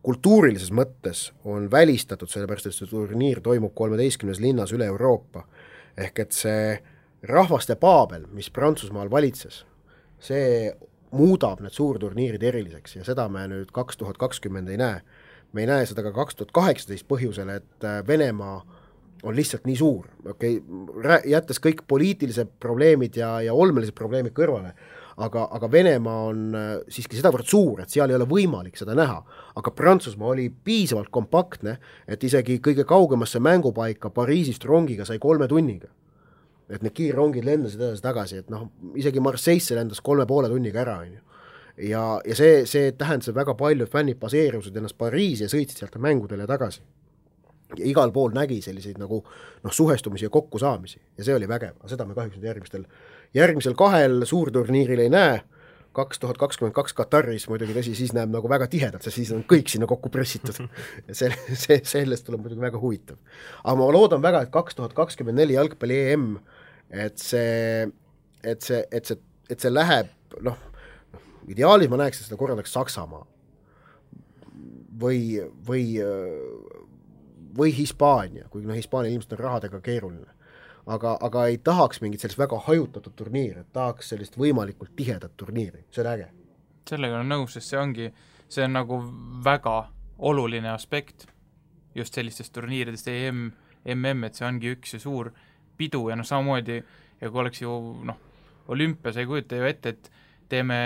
kultuurilises mõttes on välistatud, sellepärast et see turniir toimub 13 linnas üle Euroopa. Ehk et see rahvaste paabel, mis Prantsusmaal valitses, see muudab need suurturniirid eriliseks ja seda me nüüd 2020 ei näe. Me ei näe seda ka 2018 põhjusel, et Venemaa on lihtsalt nii suur, jättes kõik poliitilised probleemid ja olmelised probleemid kõrvale, aga Venemaa on siiski sedavõrd suur, et seal ei ole võimalik seda näha, aga Prantsusmaa oli piisavalt kompaktne, et isegi kõige kaugemasse mängupaika Pariisist rongiga sai 3 tunniga, et need kiirrongid lendasid edasi tagasi, et isegi Marseille'sse lendas 3,5 tunniga ära, on ju. Ja see tähendas väga palju, et fännid baseerusid ennast Pariisi ja sõitsid sealt mängudele tagasi. Ja igal pool nägi selliseid nagu suhestumisi ja kokkusaamisi ja see oli vägev, aga seda me kahjuks järgmisel 2 suurturniiril ei näe, 2022 Kataris muidugi tõsi, siis näeb nagu väga tihedalt, sest siis on kõik sinna kokku pressitud ja sellest tuleb muidugi väga huvitav. Aga ma loodan väga, et 2024 jalgpalli EM, et see läheb, ideaalis ma näeks, et seda korraldaks Saksamaa või Hispaania, kuigi Hispaania ilmselt on rahadega keeruline. Aga ei tahaks mingit sellist väga hajutatud turniiri, et tahaks sellist võimalikult tihedat turniiri, see on äge. Sellega on nõus, sest see on nagu väga oluline aspekt just sellistest turniiridest MM, et see ongi üks ja suur pidu ja samamoodi, ja kui oleks ju olümpia, sa ei kujuta ju ette, et teeme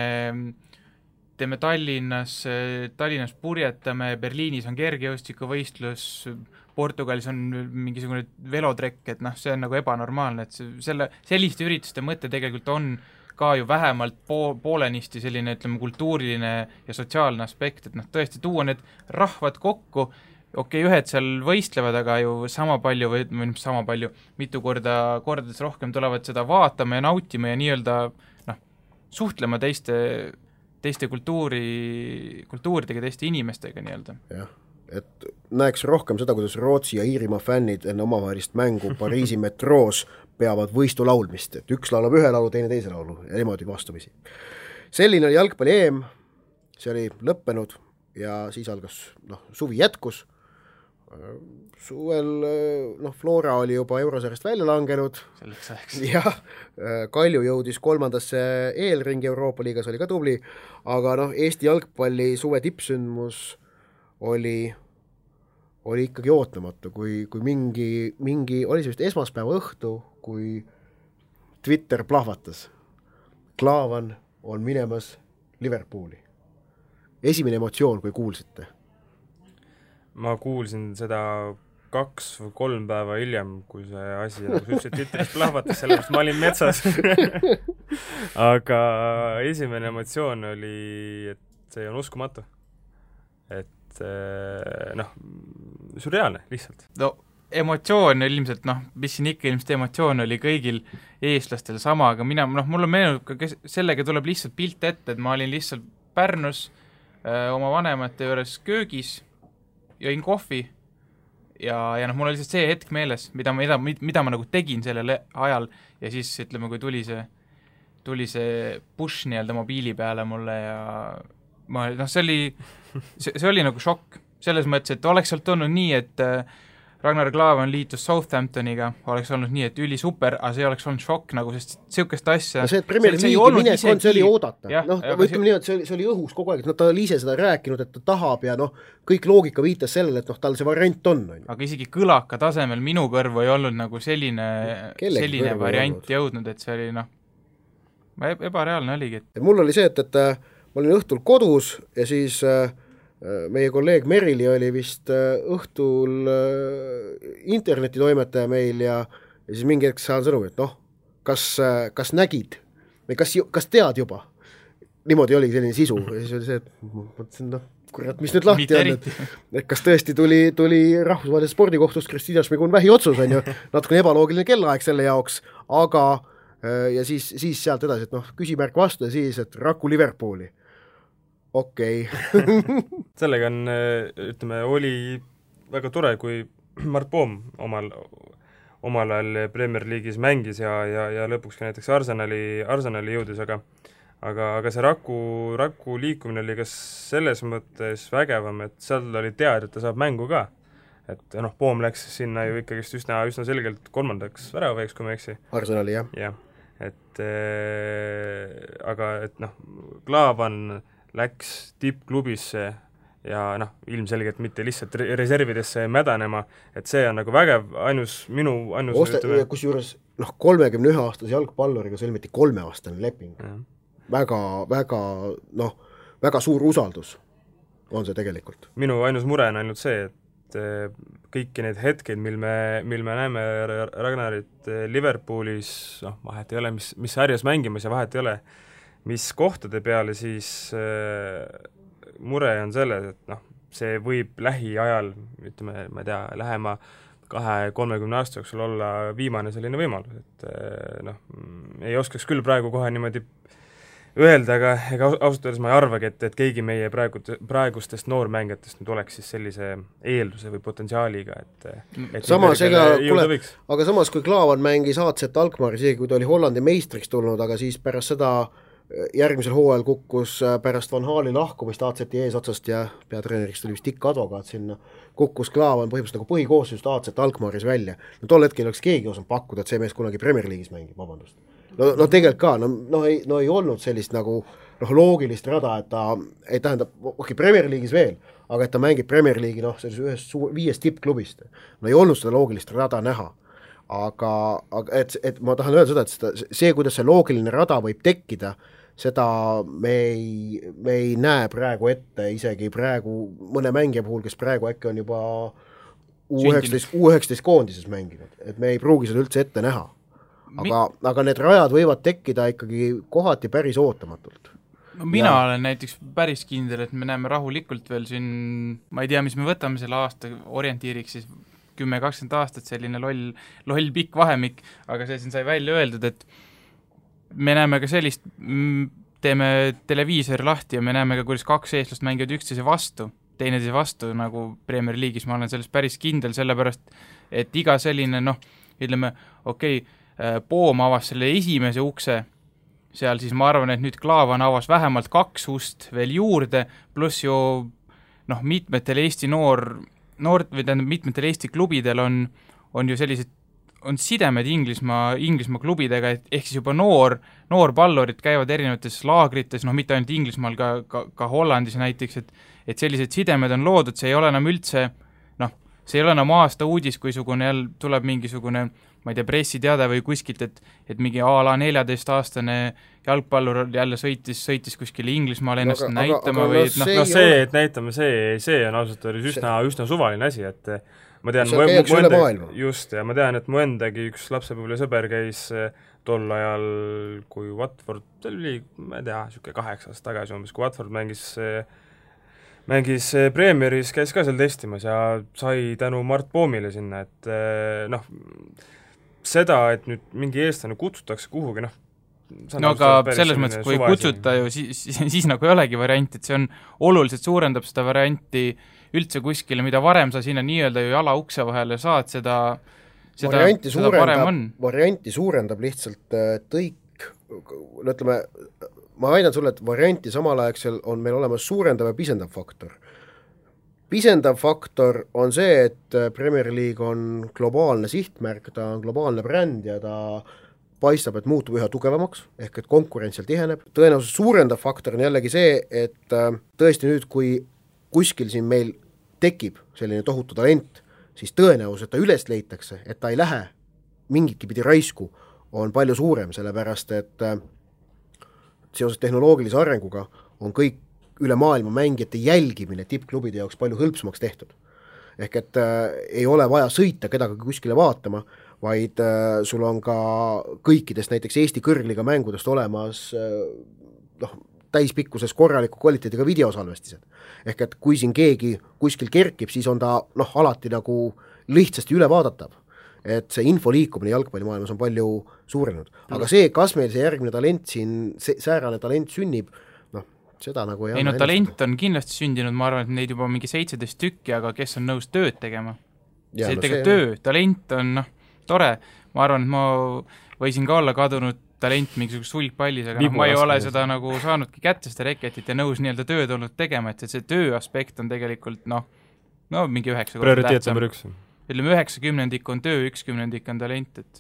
Tallinnas purjetame, Berliinis on kergejõustikuvõistlus, Portugalis on mingisugune velotrekk, et see on nagu ebanormaalne, et selliste ürituste mõte tegelikult on ka ju vähemalt poolenisti selline, ütleme, kultuuriline ja sotsiaalne aspekt, et tõesti tuua need rahvad kokku, ühed seal võistlevad, aga ju sama palju, mitu kordades rohkem tulevad seda vaatama ja nautima ja nii-öelda suhtlema teiste kultuuridega, teiste inimestega nii-öelda. Jah, et näeks rohkem seda, kuidas Rootsi ja Iirimaa fännid enne omavahelist mängu Pariisi metroos peavad võistu laulmist, et üks laulab ühe laulu, teine teise laulu ja niimoodi vastamisi. Selline oli jalgpalli EM, see oli lõppenud ja siis algas, suvi jätkus, suvel, Flora oli juba eurosarjast välja langenud, jah, Kalju jõudis 3. eelringi Euroopa liigas, oli ka tubli, aga Eesti jalgpalli suve tippsündmus oli ikkagi ootamatu, kui mingi oli see vist esmaspäeva õhtu, kui Twitter plahvatas. Klaavan on minemas Liverpooli. Esimene emotsioon, kui kuulsite? Ma kuulsin seda 2 või 3 päeva hiljem, kui see asi, nagu sa ütlesid, Twitteris plahvatas, sellepärast ma olin metsas. Aga esimene emotsioon oli, et see on uskumatu. Et sürreaalne lihtsalt. No emotsioon ilmselt, mis siin ikka ilmselt emotsioon oli kõigil eestlastel sama, aga mulle meenub ka, sellega tuleb lihtsalt pilt ette, et ma olin lihtsalt Pärnus oma vanemate juures köögis, jõin kohvi ja mul oli lihtsalt see hetk meeles, mida ma nagu tegin sellel ajal ja siis ütleme, kui tuli see push nii-öelda mobiili peale mulle ja see oli nagu šokk, selles mõttes, et oleks sealt olnud nii, et Ragnar Klavan liitus Southamptoniga, oleks olnud nii, et üli super, aga see oleks olnud šokk nagu, sest sihukest asja... see, et Premier League'i minek on, see oli oodata. Ütleme nii, et see oli õhus kogu aeg, et ta oli ise seda rääkinud, et ta tahab ja kõik loogika viitas sellele, et tal see variant on. Aga isegi kõlaka tasemel minu kõrvu ei olnud nagu selline variant jõudnud, et see oli ebareaalne oligi. Mul oli see, et ma olin õhtul kodus ja siis... meie kolleeg Merili oli vist õhtul internetitoimetaja meil ja siis mingi hetk saan sõnumi, et kas nägid või kas tead juba? Niimoodi oligi selline sisu ja siis oli see, et mõtlesin, kurat, mis nüüd lahti on, et kas tõesti tuli rahvusvahelisest spordikohtust Kristina Šmigun-Vähi otsus, on ju, natukene ebaloogiline kellaaeg selle jaoks, aga ja siis sealt edasi, et küsimärk vastu ja siis, et Raku Liverpooli. Okei. Sellega on, ütleme, oli väga tore, kui Mart Poom omal ajal Premier League'is mängis ja lõpuks ka näiteks Arsenali jõudis, aga see Raku liikumine oli ka selles mõttes vägevam, et seal oli teada, et ta saab mängu ka. Et Poom läks sinna ju ikkagist üsna selgelt 3. väravaiks, kui ma eksi. Arsenali, jah. Jah, aga Klaavan läks tippklubisse ja ilmselgelt mitte lihtsalt reservidesse mädanema, et see on nagu vägev, minu kusjuures 31-aastase jalgpalluriga sõlmiti 3-aastane leping. Väga suur usaldus on see tegelikult. Minu ainus mure on ainult see, et kõiki need hetked, mil me näeme Ragnarit Liverpoolis, vahet ei ole, mis sarjas mängimas ja vahet ei ole, mis kohtade peale, siis mure on selles, et see võib lähiajal, ütleme, ma ei tea, lähema 2-30 aasta jooksul olla viimane selline võimalus, et ei oskaks küll praegu kohe niimoodi öelda, aga ausalt öeldes ma ei arvagi, et keegi meie praegustest noormängijatest nüüd oleks siis sellise eelduse või potentsiaaliga, et samas, aga samas, kui Klaavan mängis AZ Alkmaari, isegi kui ta oli Hollandi meistriks tulnud, aga siis pärast seda järgmisel hooajal kukkus pärast Van Haali lahkumist AZ-i eesotsast ja peatreeneriks tuli vist Dick Advokaat sinna, kukkus Klaavan põhimõtteliselt nagu põhikoosseisust AZ Alkmaaris välja. Tol hetkel oleks keegi osanud pakkuda, et see mees kunagi Premier League'is mängib, vabandust. Tegelikult ka, ei olnud sellist nagu loogilist rada, et ta ei tähendab, Premier League'is veel, aga et ta mängib Premier League'i ühest 5 tippklubist. Ei olnud seda loogilist rada näha. Aga et ma tahan öelda seda, et see, kuidas see loogiline rada võib tekkida, seda me ei näe praegu ette, isegi praegu mõne mängija puhul, kes praegu äkki on juba U19 koondises mänginud, et me ei pruugi seda üldse ette näha. Aga need rajad võivad tekkida ikkagi kohati päris ootamatult. Mina olen näiteks päris kindel, et me näeme rahulikult veel siin, ma ei tea, mis me võtame selle aasta orientiiriks, siis 10-20 aastat selline loll pikk vahemik, aga see siin sai välja öeldud, et me näeme ka sellist, teeme televiisori lahti ja me näeme ka, kuidas 2 eestlast mängivad teineteise vastu nagu Premier League'is, ma olen sellest päris kindel, sellepärast, et iga selline, ütleme, Poom avas selle esimese ukse seal siis ma arvan, et nüüd Klaavan avas vähemalt 2 ust veel juurde, pluss ju mitmetel Eesti mitmetel Eesti klubidel on ju sellised on sidemed Inglismaa klubidega, ehk siis juba noorpallurid käivad erinevates laagrites, mitte ainult Inglismaal, ka Hollandis näiteks, et sellised sidemed on loodud, see ei ole enam üldse, see ei ole enam aasta uudis, kui jälle tuleb mingisugune, ma ei tea, pressiteade või kuskilt, et mingi a la 14-aastane jalgpallur jälle sõitis kuskile Inglismaale ennast näitama või see, et näitame, see on ausalt öeldes üsna suvaline asi, et ma tean, ja ma tean, et mu endagi üks lapsepõlve sõber käis tol ajal, kui Watford, see oli, ma ei tea, siuke 8 aastat tagasi umbes, kui Watford mängis Premieris, käis ka seal testimas ja sai tänu Mart Poomile sinna, et seda, et nüüd mingi eestlane kutsutakse kuhugi, aga selles mõttes, kui kutsuta ju, siis nagu ei olegi varianti, et see on oluliselt suurendab seda varianti üldse kuskile, mida varem sa sinna nii-öelda ju jala ukse vahele saad, seda parem on. Varianti suurendab lihtsalt tõik, ütleme, ma väidan sulle, et varianti samal aegsel on meil olemas suurendav ja pisendav faktor. Pisendav faktor on see, et Premier League on globaalne sihtmärk, ta on globaalne bränd ja ta paistab, et muutub üha tugevamaks, ehk et konkurents seal tiheneb. Tõenäoliselt suurendav faktor on jällegi see, et tõesti nüüd, kui kuskil siin meil tekib selline tohutu talent, siis tõenäoliselt ta üles leitakse, et ta ei lähe mingitki pidi raisku, on palju suurem, sellepärast et seoses tehnoloogilise arenguga on kõik üle maailma mängijate jälgimine tippklubide jaoks palju hõlpsamaks tehtud. Ehk et ei ole vaja sõita kedagi kuskile vaatama, vaid sul on ka kõikidest näiteks Eesti kõrgliga mängudest olemas täispikkuses korraliku kvaliteediga videosalvestised. Ehk et kui siin keegi kuskil kerkib, siis on ta alati nagu lihtsasti üle vaadatav. Et see info liikumine jalgpallimaailmas on palju suurenenud. Aga see, kas meil see järgmine talent siin, säärane talent sünnib, seda nagu ei anna. Talent on kindlasti sündinud, ma arvan, et neid juba mingi 17 tükki, aga kes on nõus tööd tegema? Talent on tore. Ma arvan, et ma võisin ka olla kadunud talent mingisugust sulgpallis, aga ma ei ole seda nagu saanudki kätte seda reketit ja nõus nii-öelda tööd olnud tegema, et see töö aspekt on tegelikult mingi 9 prioriteet number 1. Ütleme 90% on töö, 10% on talent, et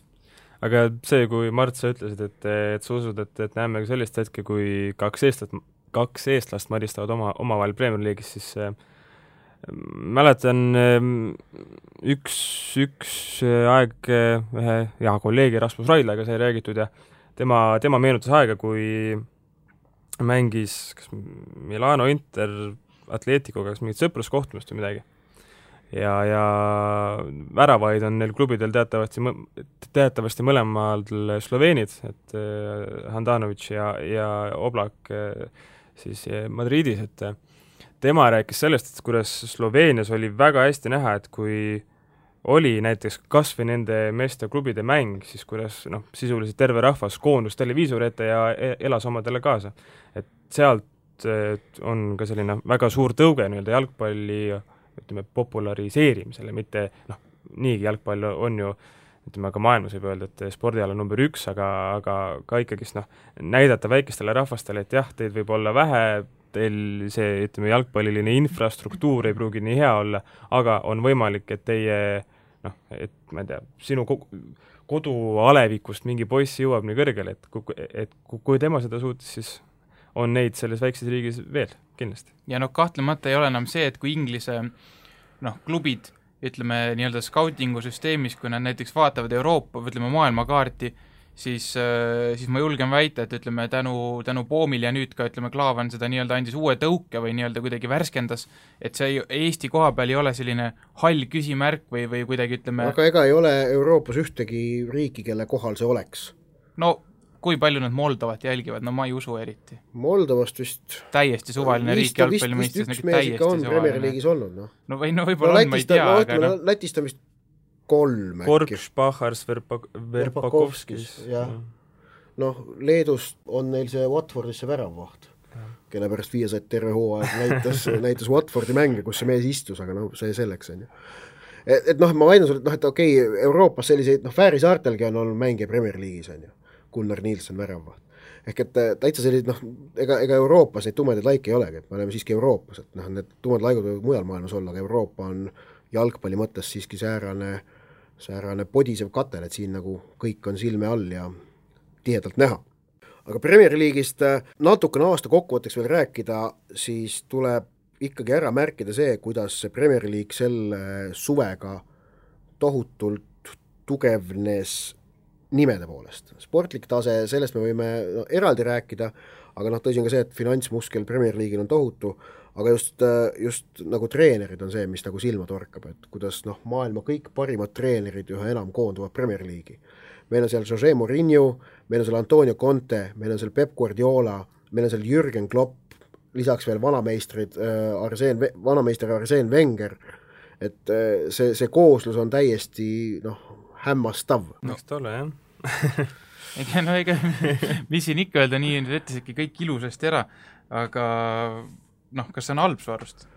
aga see, kui Mart, sa ütlesid, et sa usud, et näeme sellist hetke, kui 2 eestlast maristavad omavahel Premier League'is, siis mäletan üks aeg ühe hea kolleegi Rasmus Raidlaga sai räägitud ja tema meenutas aega, kui mängis Milano Inter Atleticoga mingit sõpruskohtumist või midagi. Ja väravaid on neil klubidel teatavasti mõlemal sloveenid, et Handanovic ja Oblak siis Madridis, et tema rääkis sellest, et kuidas Sloveenias oli väga hästi näha, et kui oli näiteks kas või nende meeste klubide mäng, siis kuidas sisuliselt terve rahvas koondus televiisori ette ja elas omadele kaasa. Et sealt on ka selline väga suur tõuge nii-öelda jalgpalli populariseerimisele, mitte niigi jalgpall on ju ka maailmas võib öelda, et spordiala number 1, aga ka ikkagist näidata väikestele rahvastele, et jah, teid võib olla vähe, teil see jalgpalliline infrastruktuur ei pruugi nii hea olla, aga on võimalik, et teie et ma ei tea, sinu kodualevikust mingi poiss jõuab nii kõrgele, et kui tema seda suutis, siis on neid selles väikses riigis veel kindlasti. Ja kahtlemata ei ole enam see, et kui Inglise klubid, ütleme nii-öelda scoutingu süsteemis, kui nad näiteks vaatavad Euroopa, ütleme maailmakaarti, siis ma julgen väita, et ütleme tänu Poomil ja nüüd ka ütleme Klaavan seda nii-öelda andis uue tõuke või nii-öelda kuidagi värskendas, et see Eesti koha peal ei ole selline hall küsimärk või kuidagi ütleme. Aga ega ei ole Euroopas ühtegi riiki, kelle kohal see oleks? Kui palju nad Moldovat jälgivad, ma ei usu eriti. Moldovast vist täiesti suvaline riik jalgpallimõistes. Vist üks mees ikka on Premier League'is olnud. Võib-olla on, ma ei tea. Lätist on vist 3 Korks, Pahars, Verpakovskis. Leedust on neil see Watfordisse väravvaht, kelle pärast Viasat terve hooaeg näitas Watfordi mänge, kus see mees istus, aga see selleks on ju. Ma väidan sulle, et okei, Euroopas selliseid, Fääri saartelgi on olnud mänge Premier League'is on ju, Gunnar Nielsen väravvaht. ehk et täitsa sellised, ega Euroopas neid tumedaid laike ei olegi, et me oleme siiski Euroopas, et need tumedad laikud võivad mujal maailmas olla, aga Euroopa on jalgpalli mõttes siiski säärane podisev katel, et siin nagu kõik on silme all ja tihedalt näha. Aga Premier League'ist natukene aasta kokkuvõtteks veel rääkida, siis tuleb ikkagi ära märkida see, kuidas see Premier League selle suvega tohutult tugevnes nimede poolest. Sportlik tase, sellest me võime eraldi rääkida, aga tõsi on ka see, et finantsmuskel Premier League'il on tohutu, aga just nagu treenerid on see, mis nagu silma torkab, et kuidas maailma kõik parimad treenerid üha enam koonduvad Premier League'i. Meil on seal Jose Mourinho, meil on seal Antonio Conte, meil on seal Pep Guardiola, meil on seal Jürgen Klopp, lisaks veel vanameister Arsène Wenger, et see kooslus on täiesti hämmastav. Eks ta ole, jah. ega mis siin ikka öelda, nii ütlesidki kõik ilusasti ära, aga kas see on halb su arust?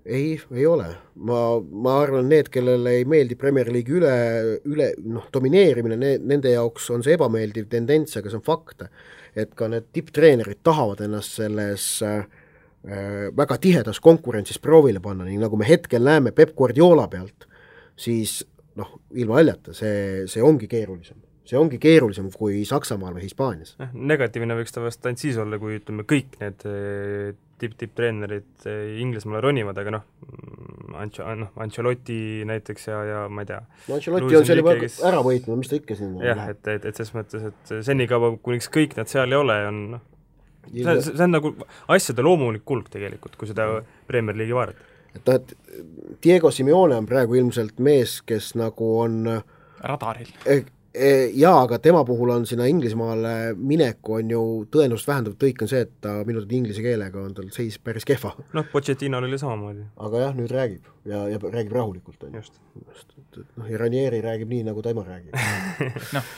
Ei ole. Ma arvan, need, kellele ei meeldi Premier League üle domineerimine, nende jaoks on see ebameeldiv tendents, aga see on fakt, et ka need tipptreenerid tahavad ennast selles väga tihedas konkurentsis proovile panna, nii nagu me hetkel näeme Pep Guardiola pealt, siis ilma aljata, see ongi keerulisem. See ongi keerulisem kui Saksamaal või Hispaanias. Negatiivne võiks ta vast ainult siis olla, kui ütleme kõik need tipp-treenerid Inglismaale ronivad, aga Ancelotti näiteks ja ma ei tea. Ancelotti on selle ära võitnud, mis ta ikka siin jah, et selles mõttes, et senikaua, kuniks kõik nad seal ei ole, on see on nagu asjade loomulik kulg tegelikult, kui seda Premier League'i vaadata. Et Diego Simeone on praegu ilmselt mees, kes nagu on radaril. Jaa, aga tema puhul on sinna Inglismaale mineku on ju tõenäoliselt vähendav tõik on see, et ta minu inglise keelega on tal seis päris kehva. Pochettino oli samamoodi. Aga jah, nüüd räägib ja räägib rahulikult. Just. Ja Ranieri räägib nii, nagu tema räägib.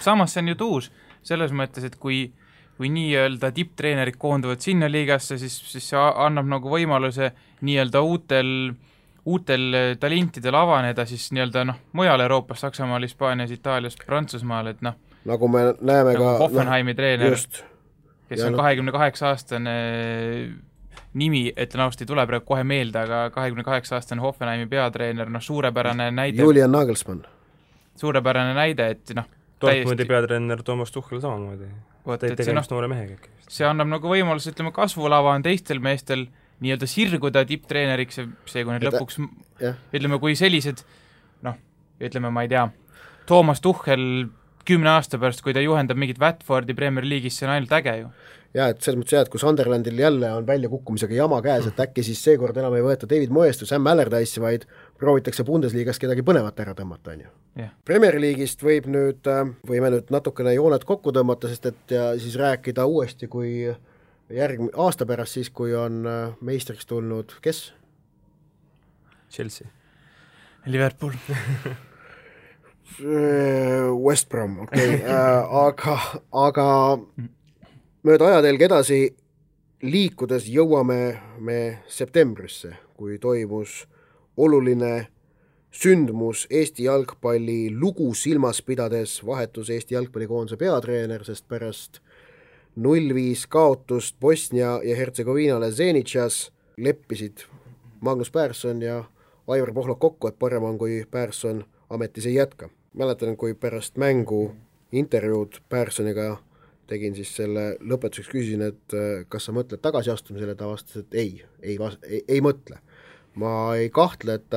Samas see on ju tuus selles mõttes, et kui nii-öelda tipptreenerid koonduvad sinna liigasse, siis see annab nagu võimaluse nii-öelda uutel talentidel avaneda siis nii-öelda mujal Euroopas, Saksamaal, Hispaanias, Itaalias, Prantsusmaal, et nagu me näeme nagu ka Hoffenheimi treener, kes on 28-aastane nimi, ütlen ausalt, ei tule praegu kohe meelde, aga 28-aastane Hoffenheimi peatreener, suurepärane näide. Julian Nagelsmann. Suurepärane näide, et Dortmundi peatreener Toomas Tuchel samamoodi. Tegemist noore mehega. See annab nagu võimalus, ütleme, kasvulava on teistel meestel nii-öelda sirguda tipptreeneriks, see kui need lõpuks, ütleme, kui sellised, ütleme, ma ei tea, Toomas Tuchel 10 aasta pärast, kui ta juhendab mingit Watfordi Premier League'is, see on ainult äge ju. Jaa, et selles mõttes et kui Sunderlandil jälle on välja kukkumisega jama käes, et äkki siis seekord enam ei võeta David Moyest või Sam Allardyce'i, vaid proovitakse Bundesliigas kedagi põnevat ära tõmmata, on ju. Yeah. Premier League'ist võime nüüd natukene jooned kokku tõmmata, sest et ja siis rääkida uuesti, kui aasta pärast siis, kui on meistriks tulnud, kes? Chelsea. Liverpool. West Brom, okei. Aga mööda ajatelg edasi liikudes jõuame me septembrisse, kui toimus oluline sündmus Eesti jalgpalli lugu silmas pidades, vahetus Eesti jalgpallikoondise peatreener, sest pärast 0-5 kaotust Bosnia ja Hertsegoviinale Zenitšas leppisid Magnus Persson ja Aivar Pohlak kokku, et parem on, kui Persson ametis ei jätka. Mäletan, kui pärast mängu intervjuud Perssoniga tegin siis selle lõpetuseks, küsisin, et kas sa mõtled tagasiastumisele, ta vastas, et ei mõtle. Ma ei kahtle, et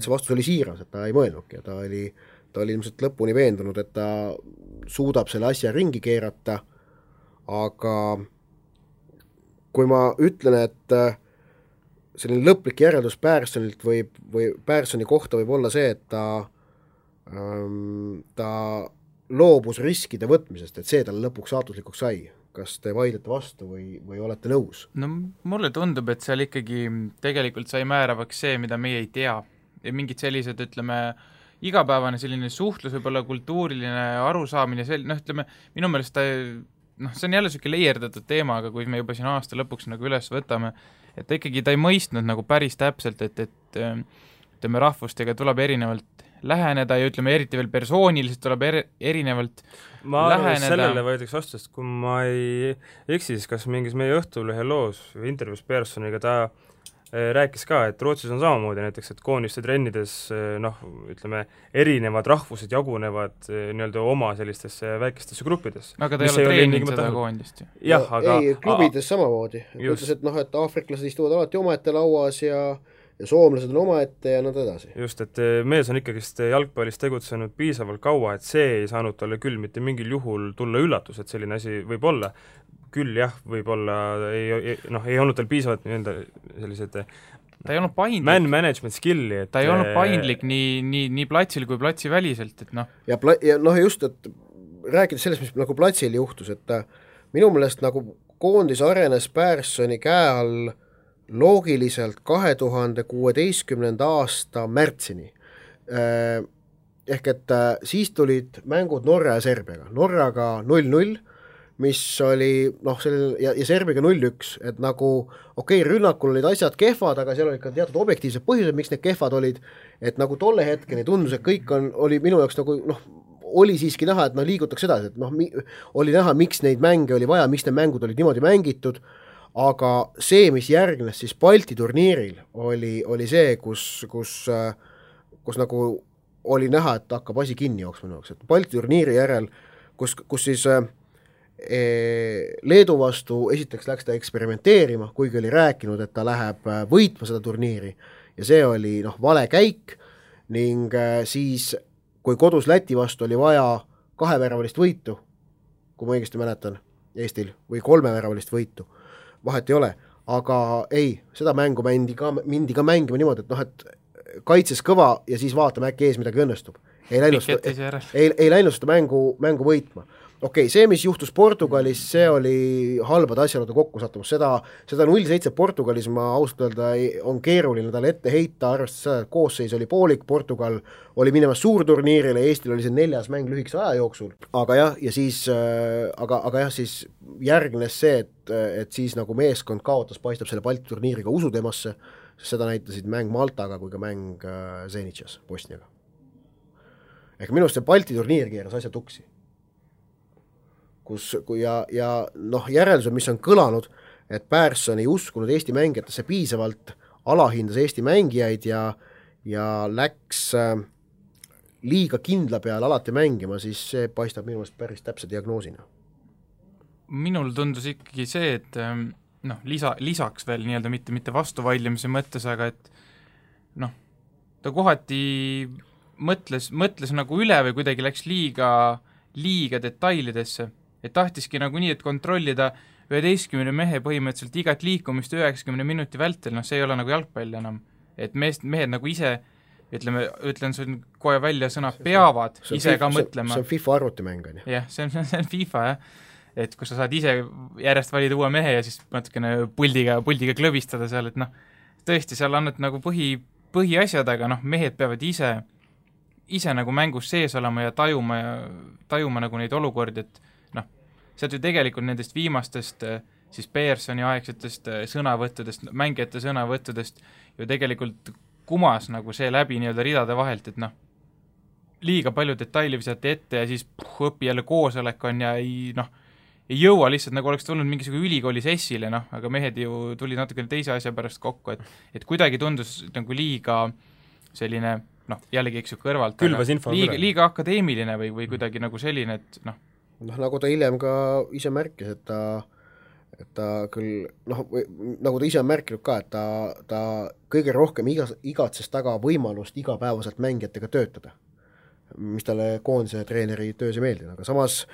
see vastus oli siiras, et ta ei mõelnudki ja ta oli ilmselt lõpuni veendunud, et ta suudab selle asja ringi keerata. Aga kui ma ütlen, et selline lõplik järeldus Perssonilt või Perssoni kohta võib olla see, et ta loobus riskide võtmisest, et see talle lõpuks saatuslikuks sai. Kas te vaidlete vastu või olete nõus? No mulle tundub, et seal ikkagi tegelikult sai määravaks see, mida meie ei tea. Ja mingid sellised, ütleme, igapäevane selline suhtlus, võib-olla kultuuriline arusaamine, ütleme, minu meelest see on jälle selline leierdatud teema, aga kui me juba siin aasta lõpuks nagu üles võtame, et ikkagi ta ei mõistnud nagu päris täpselt, et ütleme, rahvustega tuleb erinevalt läheneda ja ütleme, eriti veel persooniliselt tuleb erinevalt ma arvan, et läheneda. sellele võetakse vastu, sest kui ma ei eksi, siis kas mingis meie Õhtulehe loos või intervjuus Pearsoniga ta rääkis ka, et Rootsis on samamoodi näiteks, et koondiste trennides ütleme, erinevad rahvused jagunevad nii-öelda oma sellistesse väikestesse gruppidesse. Aga ta ei ole treeninud seda koondist ju. Jah, aga ei, klubides samamoodi. Ütles, et aafriklased istuvad alati omaette lauas ja soomlased on omaette ja nad edasi. Just, et mees on ikkagist jalgpallis tegutsenud piisavalt kaua, et see ei saanud talle küll mitte mingil juhul tulla üllatus, et selline asi võib olla. Küll jah, võib-olla ei olnud tal piisavalt sellised ta ei olnud paindlik. Management skilli, et ta ei olnud paindlik nii platsil kui platsi väliselt, et Ja just, et rääkides sellest, mis nagu platsil juhtus, et minu meelest nagu koondis arenes Pearsoni käe all loogiliselt 2016. aasta märtsini. Ehk et siis tulid mängud Norra ja Serbiaga. Norraga 0-0, mis oli, ja Serbiaga 0-1, et nagu rünnakul olid asjad kehvad, aga seal olid ka teatud objektiivsed põhjused, miks need kehvad olid, et nagu tolle hetkeni tundus, et kõik oli minu jaoks nagu, oli siiski näha, et liigutakse edasi, et oli näha, miks neid mänge oli vaja, miks need mängud olid niimoodi mängitud, aga see, mis järgnes siis Balti turniiril, oli see, kus nagu oli näha, et hakkab asi kinni jooksma, et Balti turniiri järel, kus siis Leedu vastu esiteks läks ta eksperimenteerima, kuigi oli rääkinud, et ta läheb võitma seda turniiri ja see oli vale käik ning siis, kui kodus Läti vastu oli vaja 2-väravalist võitu, kui ma õigesti mäletan Eestil, või 3-väravalist võitu, vahet ei ole, aga ei, seda mängu mindi ka mängima niimoodi, et kaitses kõva ja siis vaatame äkki ees midagi õnnestub. Ei läinud seda mängu võitma. See, mis juhtus Portugalis, see oli halbade asjaolude kokkusattumus. Seda 0-7 Portugalis ma ausalt öelda on keeruline talle ette heita, arvestades seda, et koosseis oli poolik, Portugal oli minemas suurturniirile, Eestil oli see 4. mäng lühikese aja jooksul. Aga jah, ja siis, siis järgnes see, et siis nagu meeskond kaotas, paistab selle Balti turniiriga usu temasse, seda näitasid mäng Maltaga kui ka mäng Zenitšas Bosniaga. Ehk minust see Balti turniir keeras asja tuksi. Järeldused, mis on kõlanud, et Pearson ei uskunud Eesti mängijatesse piisavalt, alahindas Eesti mängijaid ja läks liiga kindla peale alati mängima, siis see paistab minu meelest päris täpse diagnoosina. Minul tundus ikkagi see, et lisaks veel nii-öelda mitte vastuvaidlemise mõttes, aga et ta kohati mõtles nagu üle või kuidagi läks liiga detailidesse, et tahtiski nagu nii, et kontrollida 11 mehe põhimõtteliselt igat liikumist 90 minuti vältel, see ei ole nagu jalgpall enam. Et mehed nagu ise, ütlen sul kohe välja sõna, peavad ise ka mõtlema. See on FIFA arvutimäng, on ju? Jah, see on FIFA, jah. Et kus sa saad ise järjest valida uue mehe ja siis natukene puldiga klõbistada seal, et tõesti, seal annad nagu põhiasjad, aga mehed peavad ise nagu mängus sees olema ja tajuma nagu neid olukordi, et sealt ju tegelikult nendest viimastest siis Pearsoni aegsetest sõnavõttudest, mängijate sõnavõttudest ju tegelikult kumas nagu see läbi nii-öelda ridade vahelt, et liiga palju detaili visati ette ja siis õpi jälle koosolek on ja ei jõua lihtsalt, nagu oleks tulnud mingisugune ülikooli sessile, aga mehed ju tulid natukene teise asja pärast kokku, et kuidagi tundus nagu liiga selline, jällegi eks ju kõrvalt, liiga akadeemiline või kuidagi nagu selline, et nagu ta hiljem ka ise märkis, et ta küll, nagu ta ise on märkinud ka, et ta kõige rohkem igatses taga võimalust igapäevaselt mängijatega töötada, mis talle koondise treeneri töös ei meeldi, aga samas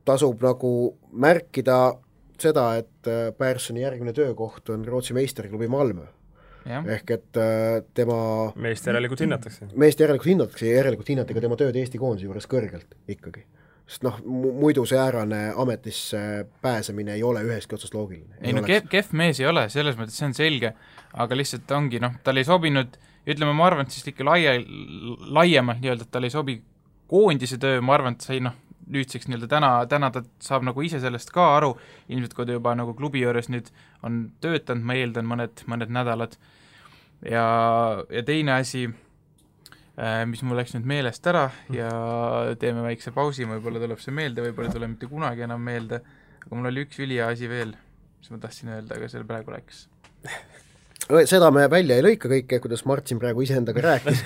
tasub nagu märkida seda, et Pearsoni järgmine töökoht on Rootsi meisterklubi Malmö. Ja. Ehk et tema meest järelikult hinnatakse ja järelikult hinnati ka tema tööd Eesti koondise juures kõrgelt ikkagi. Sest muidu see äärane ametisse pääsemine ei ole ühestki otsast loogiline. Ei kehv mees ei ole, selles mõttes see on selge, aga lihtsalt ongi, tal ei sobinud, ütleme, ma arvan, et siis ikka laiemalt nii-öelda, et tal ei sobi koondise töö, ma arvan, et sai nüüdseks nii-öelda täna ta saab nagu ise sellest ka aru, ilmselt kui ta juba nagu klubi juures nüüd on töötanud, ma eeldan mõned nädalad. Ja teine asi, mis mul läks nüüd meelest ära ja teeme väikse pausi, võib-olla tuleb see meelde, võib-olla ei tule mitte kunagi enam meelde, aga mul oli üks ülihea asi veel, mis ma tahtsin öelda, aga selle praegu läks. Seda me välja ei lõika kõike, kuidas Martin praegu iseendaga rääkis,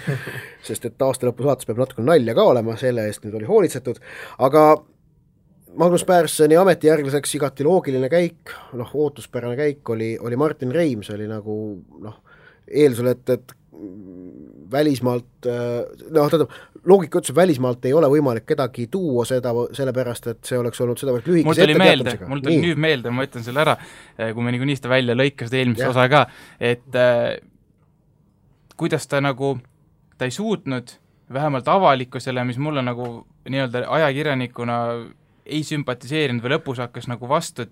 sest et aasta lõpu saates peab natuke nalja ka olema, selle eest nüüd oli hoolitsetud, aga Magnus Pärssoni ametijärglaseks igati loogiline käik, ootuspärane käik oli Martin Reim, see oli nagu eeldusel, et välismaalt, loogika ütles, välismaalt ei ole võimalik kedagi tuua seda, sellepärast, et see oleks olnud seda lühikese etteteatamisega. Mul tuli nüüd meelde, ma ütlen selle ära, kui me niikuinii seda välja lõikasid eelmise osa ka, et kuidas ta ei suutnud vähemalt avalikkusele, mis mulle nagu nii-öelda ajakirjanikuna ei sümpatiseerinud või lõpus hakkas nagu vastu, et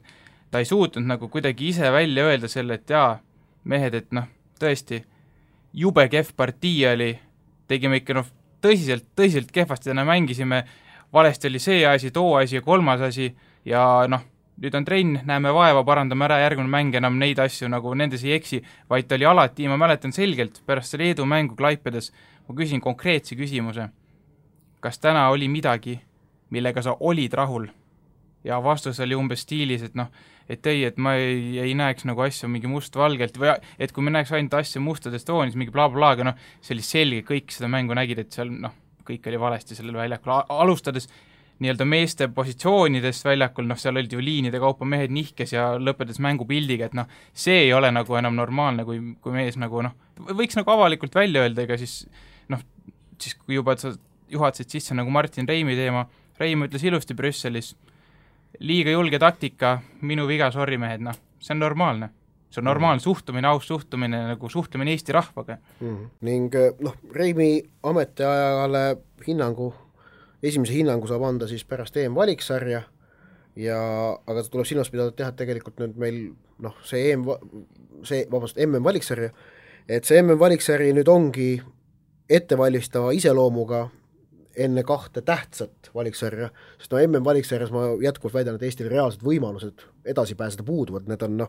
ta ei suutnud nagu kuidagi ise välja öelda selle, et jaa, mehed, et tõesti, jube kehv partii oli, tegime ikka tõsiselt kehvasti, täna mängisime, valesti oli see asi, too asi ja kolmas asi ja nüüd on trenn, näeme vaeva, parandame ära, järgmine mäng enam neid asju nagu nendes ei eksi, vaid ta oli alati, ma mäletan selgelt, pärast selle Leedu mängu Klaipedas, ma küsin konkreetse küsimuse, kas täna oli midagi, millega sa olid rahul? Ja vastus oli umbes stiilis, et et ma ei näeks nagu asju mingi must-valgelt või et kui me näeks ainult asju mustades toonis, mingi bla-bla, aga see oli selge, kõik seda mängu nägid, et seal kõik oli valesti sellel väljakul, alustades nii-öelda meeste positsioonidest väljakul, seal olid ju liinide kaupa mehed nihkes ja lõpetades mängupildiga, et see ei ole nagu enam normaalne, kui mees nagu võiks nagu avalikult välja öelda, ega siis kui juba sa juhatasid sisse nagu Martin Reimi teema, Reim ütles ilusti Brüsselis, liiga julge taktika, minu viga, sorry mehed, see on normaalne. See on normaalne suhtumine, aus suhtumine, nagu suhtumine Eesti rahvaga. Ning Reimi ametiajale esimese hinnangu saab anda siis pärast EM-valiksarja, aga ta tuleb silmas pidada teha tegelikult nüüd meil see MM-valiksarja, et see MM-valiksari nüüd ongi ettevalmistava iseloomuga enne kahte tähtsat valiksarja, sest MM-valiksarjas ma jätkuvalt väidan, et Eestil reaalsed võimalused edasi pääseda puuduvad, need on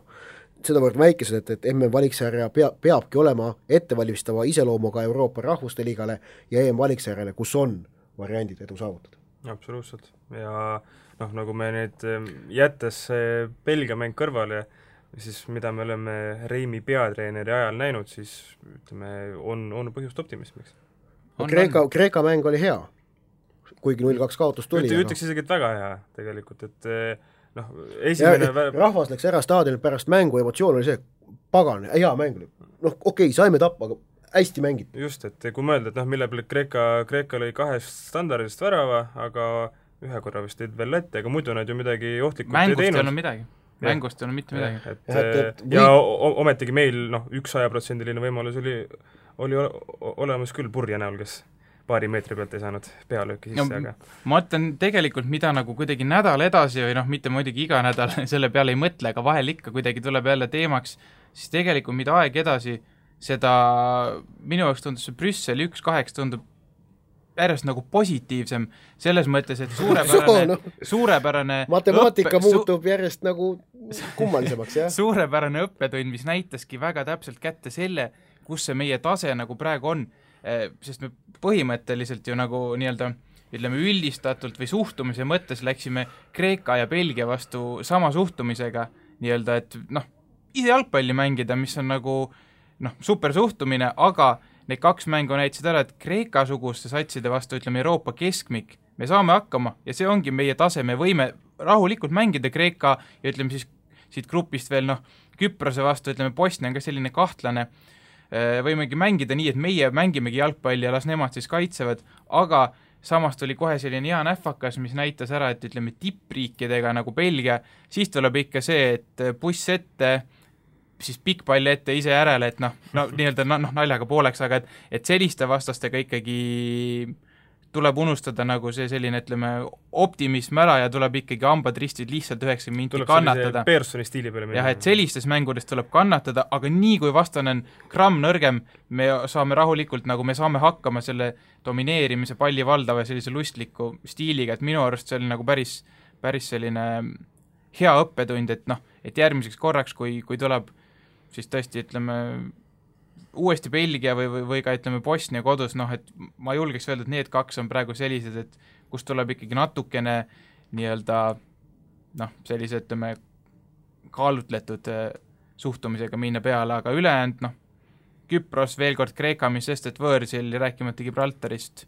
sedavõrd väikesed, et MM-valiksarja peabki olema ettevalmistava iseloomuga Euroopa Rahvuste Liigale ja EM-valiksarjale, kus on variandid edu saavutada. Absoluutselt. Ja nagu me nüüd jättes Belgia mäng kõrvale, siis mida me oleme Reimi peatreeneri ajal näinud, siis ütleme, on põhjust optimismiks. Kreeka mäng oli hea, kuigi 0-2 kaotus tuli. Ütleks isegi, et väga hea tegelikult, et esimene... rahvas läks ära staadionil pärast mängu, emotsioon oli see, pagan, hea mäng oli. Okei, saime tappa, aga hästi mängid. Just, et kui mõelda, et mille peale Kreeka lõi 2 standardist värava, aga ühe korra vist teid veel lätte, aga muidu nad ju midagi ohtlikult ei teinud. Mängust ei olnud mitte midagi. Ja ometigi meil 100% võimalus oli olemas küll Purje näol, kes paari meetri pealt ei saanud pealööki sisse, aga... Ma ütlen tegelikult, mida nagu kuidagi nädal edasi või mitte muidugi iga nädal selle peale ei mõtle, aga vahel ikka kuidagi tuleb jälle teemaks, siis tegelikult mida aeg edasi, seda minu jaoks tundus see Brüsseli 1-8 tundub järjest nagu positiivsem, selles mõttes, et suurepärane matemaatika muutub järjest nagu kummalisemaks, jah? Suurepärane õppetund, mis näitaski väga täpselt kätte selle, kus see meie tase nagu praegu on, sest me põhimõtteliselt ju nagu nii-öelda ütleme üldistatult või suhtumise mõttes läksime Kreeka ja Belgia vastu sama suhtumisega nii-öelda, et ise jalgpalli mängida, mis on nagu super suhtumine, aga need 2 mängu näitasid ära, et Kreeka-suguste satside vastu, ütleme Euroopa keskmik, me saame hakkama ja see ongi meie tase, me võime rahulikult mängida Kreeka ja ütleme siis siit grupist veel Küprose vastu, ütleme Bosnia on ka selline kahtlane, võimegi mängida nii, et meie mängimegi jalgpalli ja las nemad siis kaitsevad, aga samas tuli kohe selline hea nähvakas, mis näitas ära, et ütleme tippriikidega nagu Belgia, siis tuleb ikka see, et buss ette, siis pikk pall ette ise järele, et nii-öelda naljaga pooleks, aga et selliste vastastega ikkagi tuleb unustada nagu see selline, ütleme, optimism ära ja tuleb ikkagi hambad ristid lihtsalt 90 minti kannatada. Tuleb Pearsoni stiili peale minna. Jah, et sellistes mängudes tuleb kannatada, aga nii kui vastane on gramm nõrgem, me saame rahulikult, nagu me saame hakkama selle domineerimise palli valdava ja sellise lustliku stiiliga, et minu arust see oli nagu päris selline hea õppetund, et järgmiseks korraks, kui tuleb siis tõesti, ütleme, uuesti Belgia või ka ütleme Bosnia kodus, noh, et ma julgeks öelda, et need kaks on praegu sellised, et kus tuleb ikkagi natukene nii-öelda noh, sellise, ütleme, kaalutletud suhtumisega minna peale, aga ülejäänud, noh, Küpros, veel kord Kreeka, mis sest, et võõrsil ja rääkimata Gibraltarist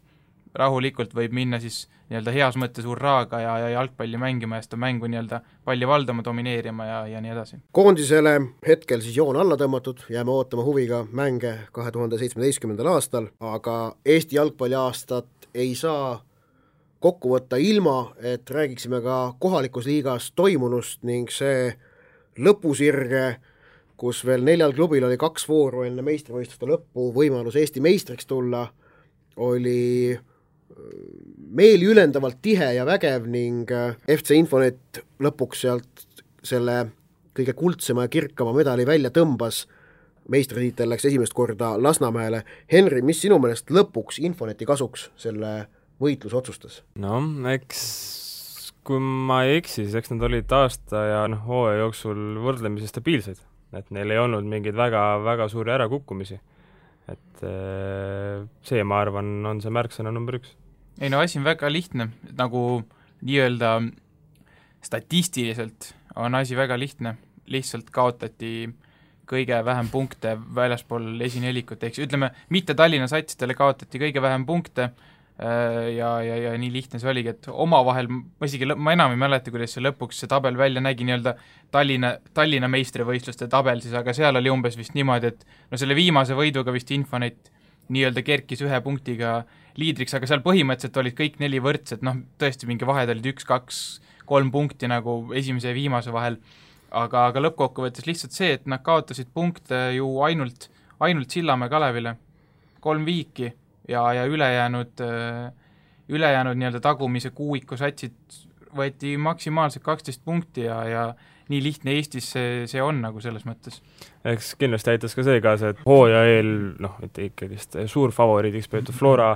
rahulikult võib minna siis nii-öelda heas mõttes hurraaga ja jalgpalli mängima ja seda mängu nii-öelda palli valdama, domineerima ja nii edasi. Koondisele hetkel siis joon alla tõmmatud, jääme ootama huviga mänge 2017. aastal, aga Eesti jalgpalliaastat ei saa kokku võtta ilma, et räägiksime ka kohalikus liigas toimunust ning see lõpusirge, kus veel 4 klubil oli 2 vooru enne meistrivõistluste lõppu võimalus Eesti meistriks tulla, oli meeli ülendavalt tihe ja vägev ning FC Infonet lõpuks sealt selle kõige kuldsema ja kirkama medali välja tõmbas. Meistritiitel läks esimest korda Lasnamäele. Henri, mis sinu meelest lõpuks Infoneti kasuks selle võitlus otsustas? No, eks kui ma ei eksi, siis eks nad olid aasta ja hooaja jooksul võrdlemisi stabiilsed, et neil ei olnud mingeid väga suuri ärakukkumisi. Et see, ma arvan, on see märksõna number 1. Ei no asi on väga lihtne, nagu nii-öelda statistiliselt on asi väga lihtne, lihtsalt kaotati kõige vähem punkte väljaspool esinelikut, eks ütleme, mitte Tallinna satsidele kaotati kõige vähem punkte ja nii lihtne see oligi, et omavahel, ma enam ei mäleta, kuidas see lõpuks see tabel välja nägi, nii-öelda Tallinna meistrivõistluste tabel siis, aga seal oli umbes vist niimoodi, et no selle viimase võiduga vist Infonet nii-öelda kerkis 1 punktiga liidriks, aga seal põhimõtteliselt olid kõik 4 võrdsed, noh tõesti mingi vahed olid 1, 2, 3 punkti nagu esimese ja viimase vahel, aga lõppkokkuvõttes lihtsalt see, et nad kaotasid punkte ju ainult Sillamäe Kalevile 3 viiki ja ülejäänud nii-öelda tagumise kuuiku satsid võeti maksimaalselt 12 punkti ja nii lihtne Eestis see on nagu selles mõttes. Eks kindlasti aitas ka see kaasa, et hooaja eel, et ikkagist suur favoriidiks peetud Flora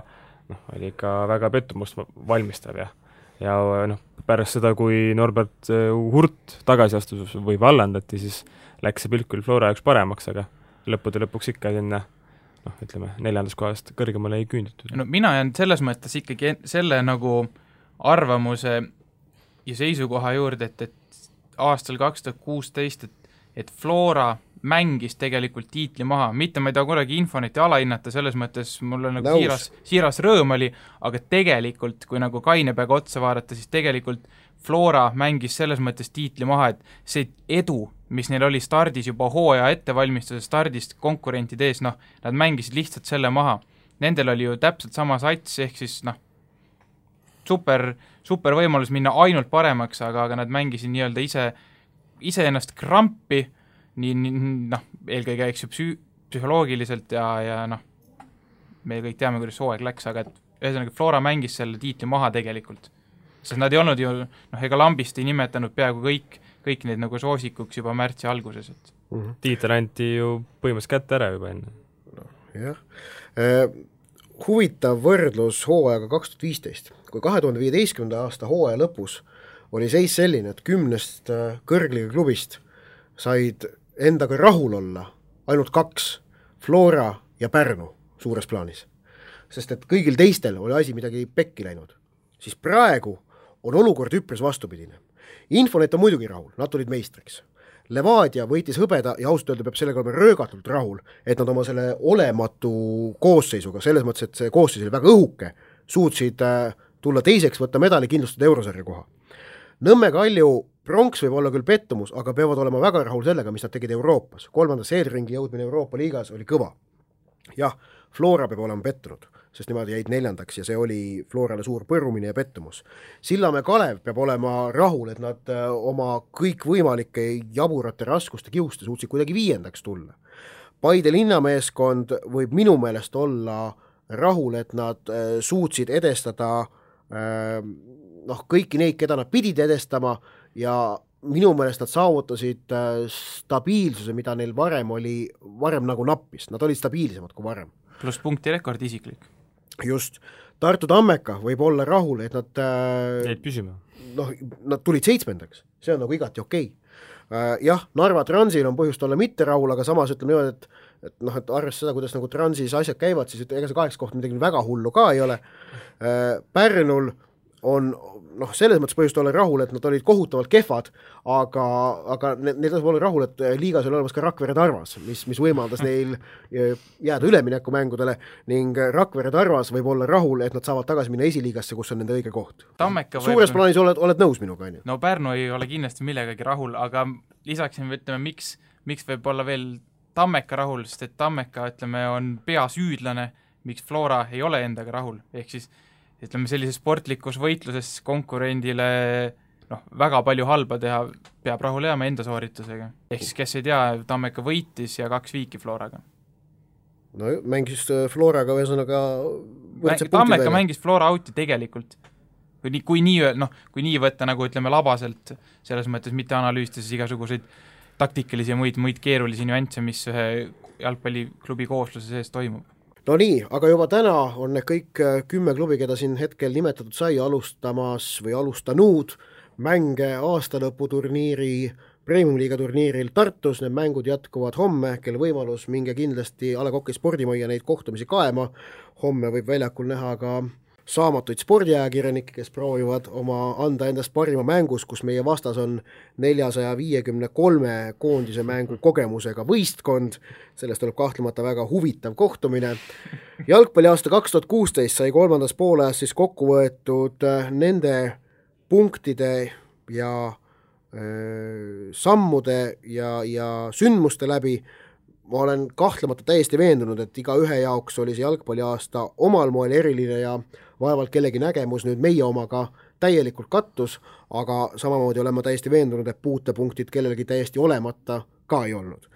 oli ikka väga pettumust valmistav ja pärast seda, kui Norbert Hurt tagasi astus või vallandati, siis läks see pilt küll Flora jaoks paremaks, aga lõppude lõpuks ikka sinna ütleme, 4. kohast kõrgemale ei küünditud. No mina jään selles mõttes ikkagi selle nagu arvamuse ja seisukoha juurde, et aastal 2016, et Flora mängis tegelikult tiitli maha, mitte ma ei taha kunagi Infoneti alahinnata, selles mõttes mul on nagu siiras rõõm oli, aga tegelikult, kui nagu kaine peaga otsa vaadata, siis tegelikult Flora mängis selles mõttes tiitli maha, et see edu, mis neil oli stardis juba hooaja ettevalmistuse stardist konkurentide ees, nad mängisid lihtsalt selle maha. Nendel oli ju täpselt sama sats, ehk siis super võimalus minna ainult paremaks, aga nad mängisid nii-öelda ise ennast krampi, eelkõige eks ju psühholoogiliselt ja me kõik teame, kuidas hooaeg läks, aga et ühesõnaga Flora mängis selle tiitli maha tegelikult. Sest nad ei olnud ju, ega lambist ei nimetanud peaaegu kõik need nagu soosikuks juba märtsi alguses. Tiitel anti ju põhimõtteliselt kätte ära juba enne. Jah. Huvitav võrdlus hooajaga 2015. Kui 2015. aasta hooaja lõpus oli seis selline, et 10 kõrgliga klubist said endaga rahul olla ainult 2, Flora ja Pärnu suures plaanis. Sest et kõigil teistel oli asi midagi pekki läinud. Siis praegu on olukord üpris vastupidine. Infonet on muidugi rahul, nad tulid meistriks. Levadia võitis hõbeda ja ausalt öelda peab sellega olema röögatult rahul, et nad oma selle olematu koosseisuga, selles mõttes, et see koosseis oli väga õhuke, suutsid tulla teiseks, võtta medali kindlustada eurosarja koha. Nõmme Kalju pronks võib olla küll pettumus, aga peavad olema väga rahul sellega, mis nad tegid Euroopas. 3. seedringi jõudmine Euroopa liigas oli kõva. Jah, Flora peab olema pettunud, sest nemad jäid 4. ja see oli Florale suur põrumine ja pettumus. Sillamäe Kalev peab olema rahul, et nad oma kõikvõimalike jaburate raskuste kiuste suutsid kuidagi 5. tulla. Paide linnameeskond võib minu meelest olla rahul, et nad suutsid edestada kõiki neid, keda nad pidid edestama ja minu meelest nad saavutasid stabiilsuse, mida neil varem nagu nappis. Nad olid stabiilsemad kui varem. Pluss punktirekord isiklik. Just. Tartu Tammeka võib olla rahul, et nad jäid püsima. Nad tulid 7. See on nagu igati okei. Jah, Narva Transil on põhjust olla mitte rahul, aga samas ütleme niimoodi, et arvestades seda, kuidas nagu Transis asjad käivad, siis ega see 8 koht midagi väga hullu ka ei ole. Pärnul on selles mõttes põhjust olla rahul, et nad olid kohutavalt kehvad, aga neil tasub olla rahul, et liigas oli olemas ka Rakvere Tarvas, mis võimaldas neil jääda üleminekumängudele ning Rakvere Tarvas võib olla rahul, et nad saavad tagasi minna esiliigasse, kus on nende õige koht. Suures plaanis oled nõus minuga, on ju? No Pärnu ei ole kindlasti millegagi rahul, aga lisaksin, ütleme, miks võib olla veel Tammeka rahul, sest et Tammeka, ütleme, on peasüüdlane, miks Flora ei ole endaga rahul, ehk siis ütleme, sellises sportlikus võitluses konkurendile väga palju halba teha, peab rahule jääma enda sooritusega. Ehk siis, kes ei tea, Tammeka võitis ja 2 viiki Floraga. No mängis Floraga ühesõnaga Tammeka mängis Flora outi tegelikult. Kui nii võtta, nagu ütleme, labaselt, selles mõttes mitte analüüsida siis igasuguseid taktikalisi ja muid keerulisi nüansse, mis ühe jalgpalliklubi koosluse sees toimub. No nii, aga juba täna on need kõik 10 klubi, keda siin hetkel nimetatud sai alustamas või alustanud mänge aastalõputurniiri, Premium-liiga turniiril Tartus. Need mängud jätkuvad homme, kel võimalus minge kindlasti A. Le Coq'i spordimajja neid kohtumisi kaema. Homme võib väljakul näha ka saamatuid spordiajakirjanikke, kes proovivad anda endast parima mängus, kus meie vastas on 453 koondise mängu kogemusega võistkond. Sellest tuleb kahtlemata väga huvitav kohtumine. Jalgpalliaasta 2016 sai 3. pooleas siis kokku võetud nende punktide ja sammude ja sündmuste läbi. Ma olen kahtlemata täiesti veendunud, et iga ühe jaoks oli see jalgpalliaasta omal moel eriline ja vaevalt kellegi nägemus nüüd meie omaga täielikult kattus, aga samamoodi olen ma täiesti veendunud, et puutepunktid kellelgi täiesti olemata ka ei olnud.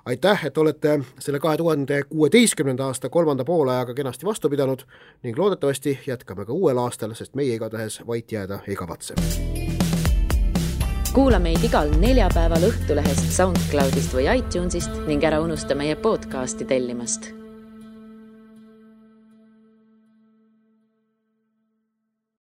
Aitäh, et olete selle 2016. aasta 3. poolajaga kenasti vastu pidanud ning loodetavasti jätkame ka uuel aastal, sest meie igatahes vait jääda ei kavatse. Kuula meid igal neljapäeval Õhtulehest, SoundCloudist või iTunesist ning ära unusta meie podcasti tellimast.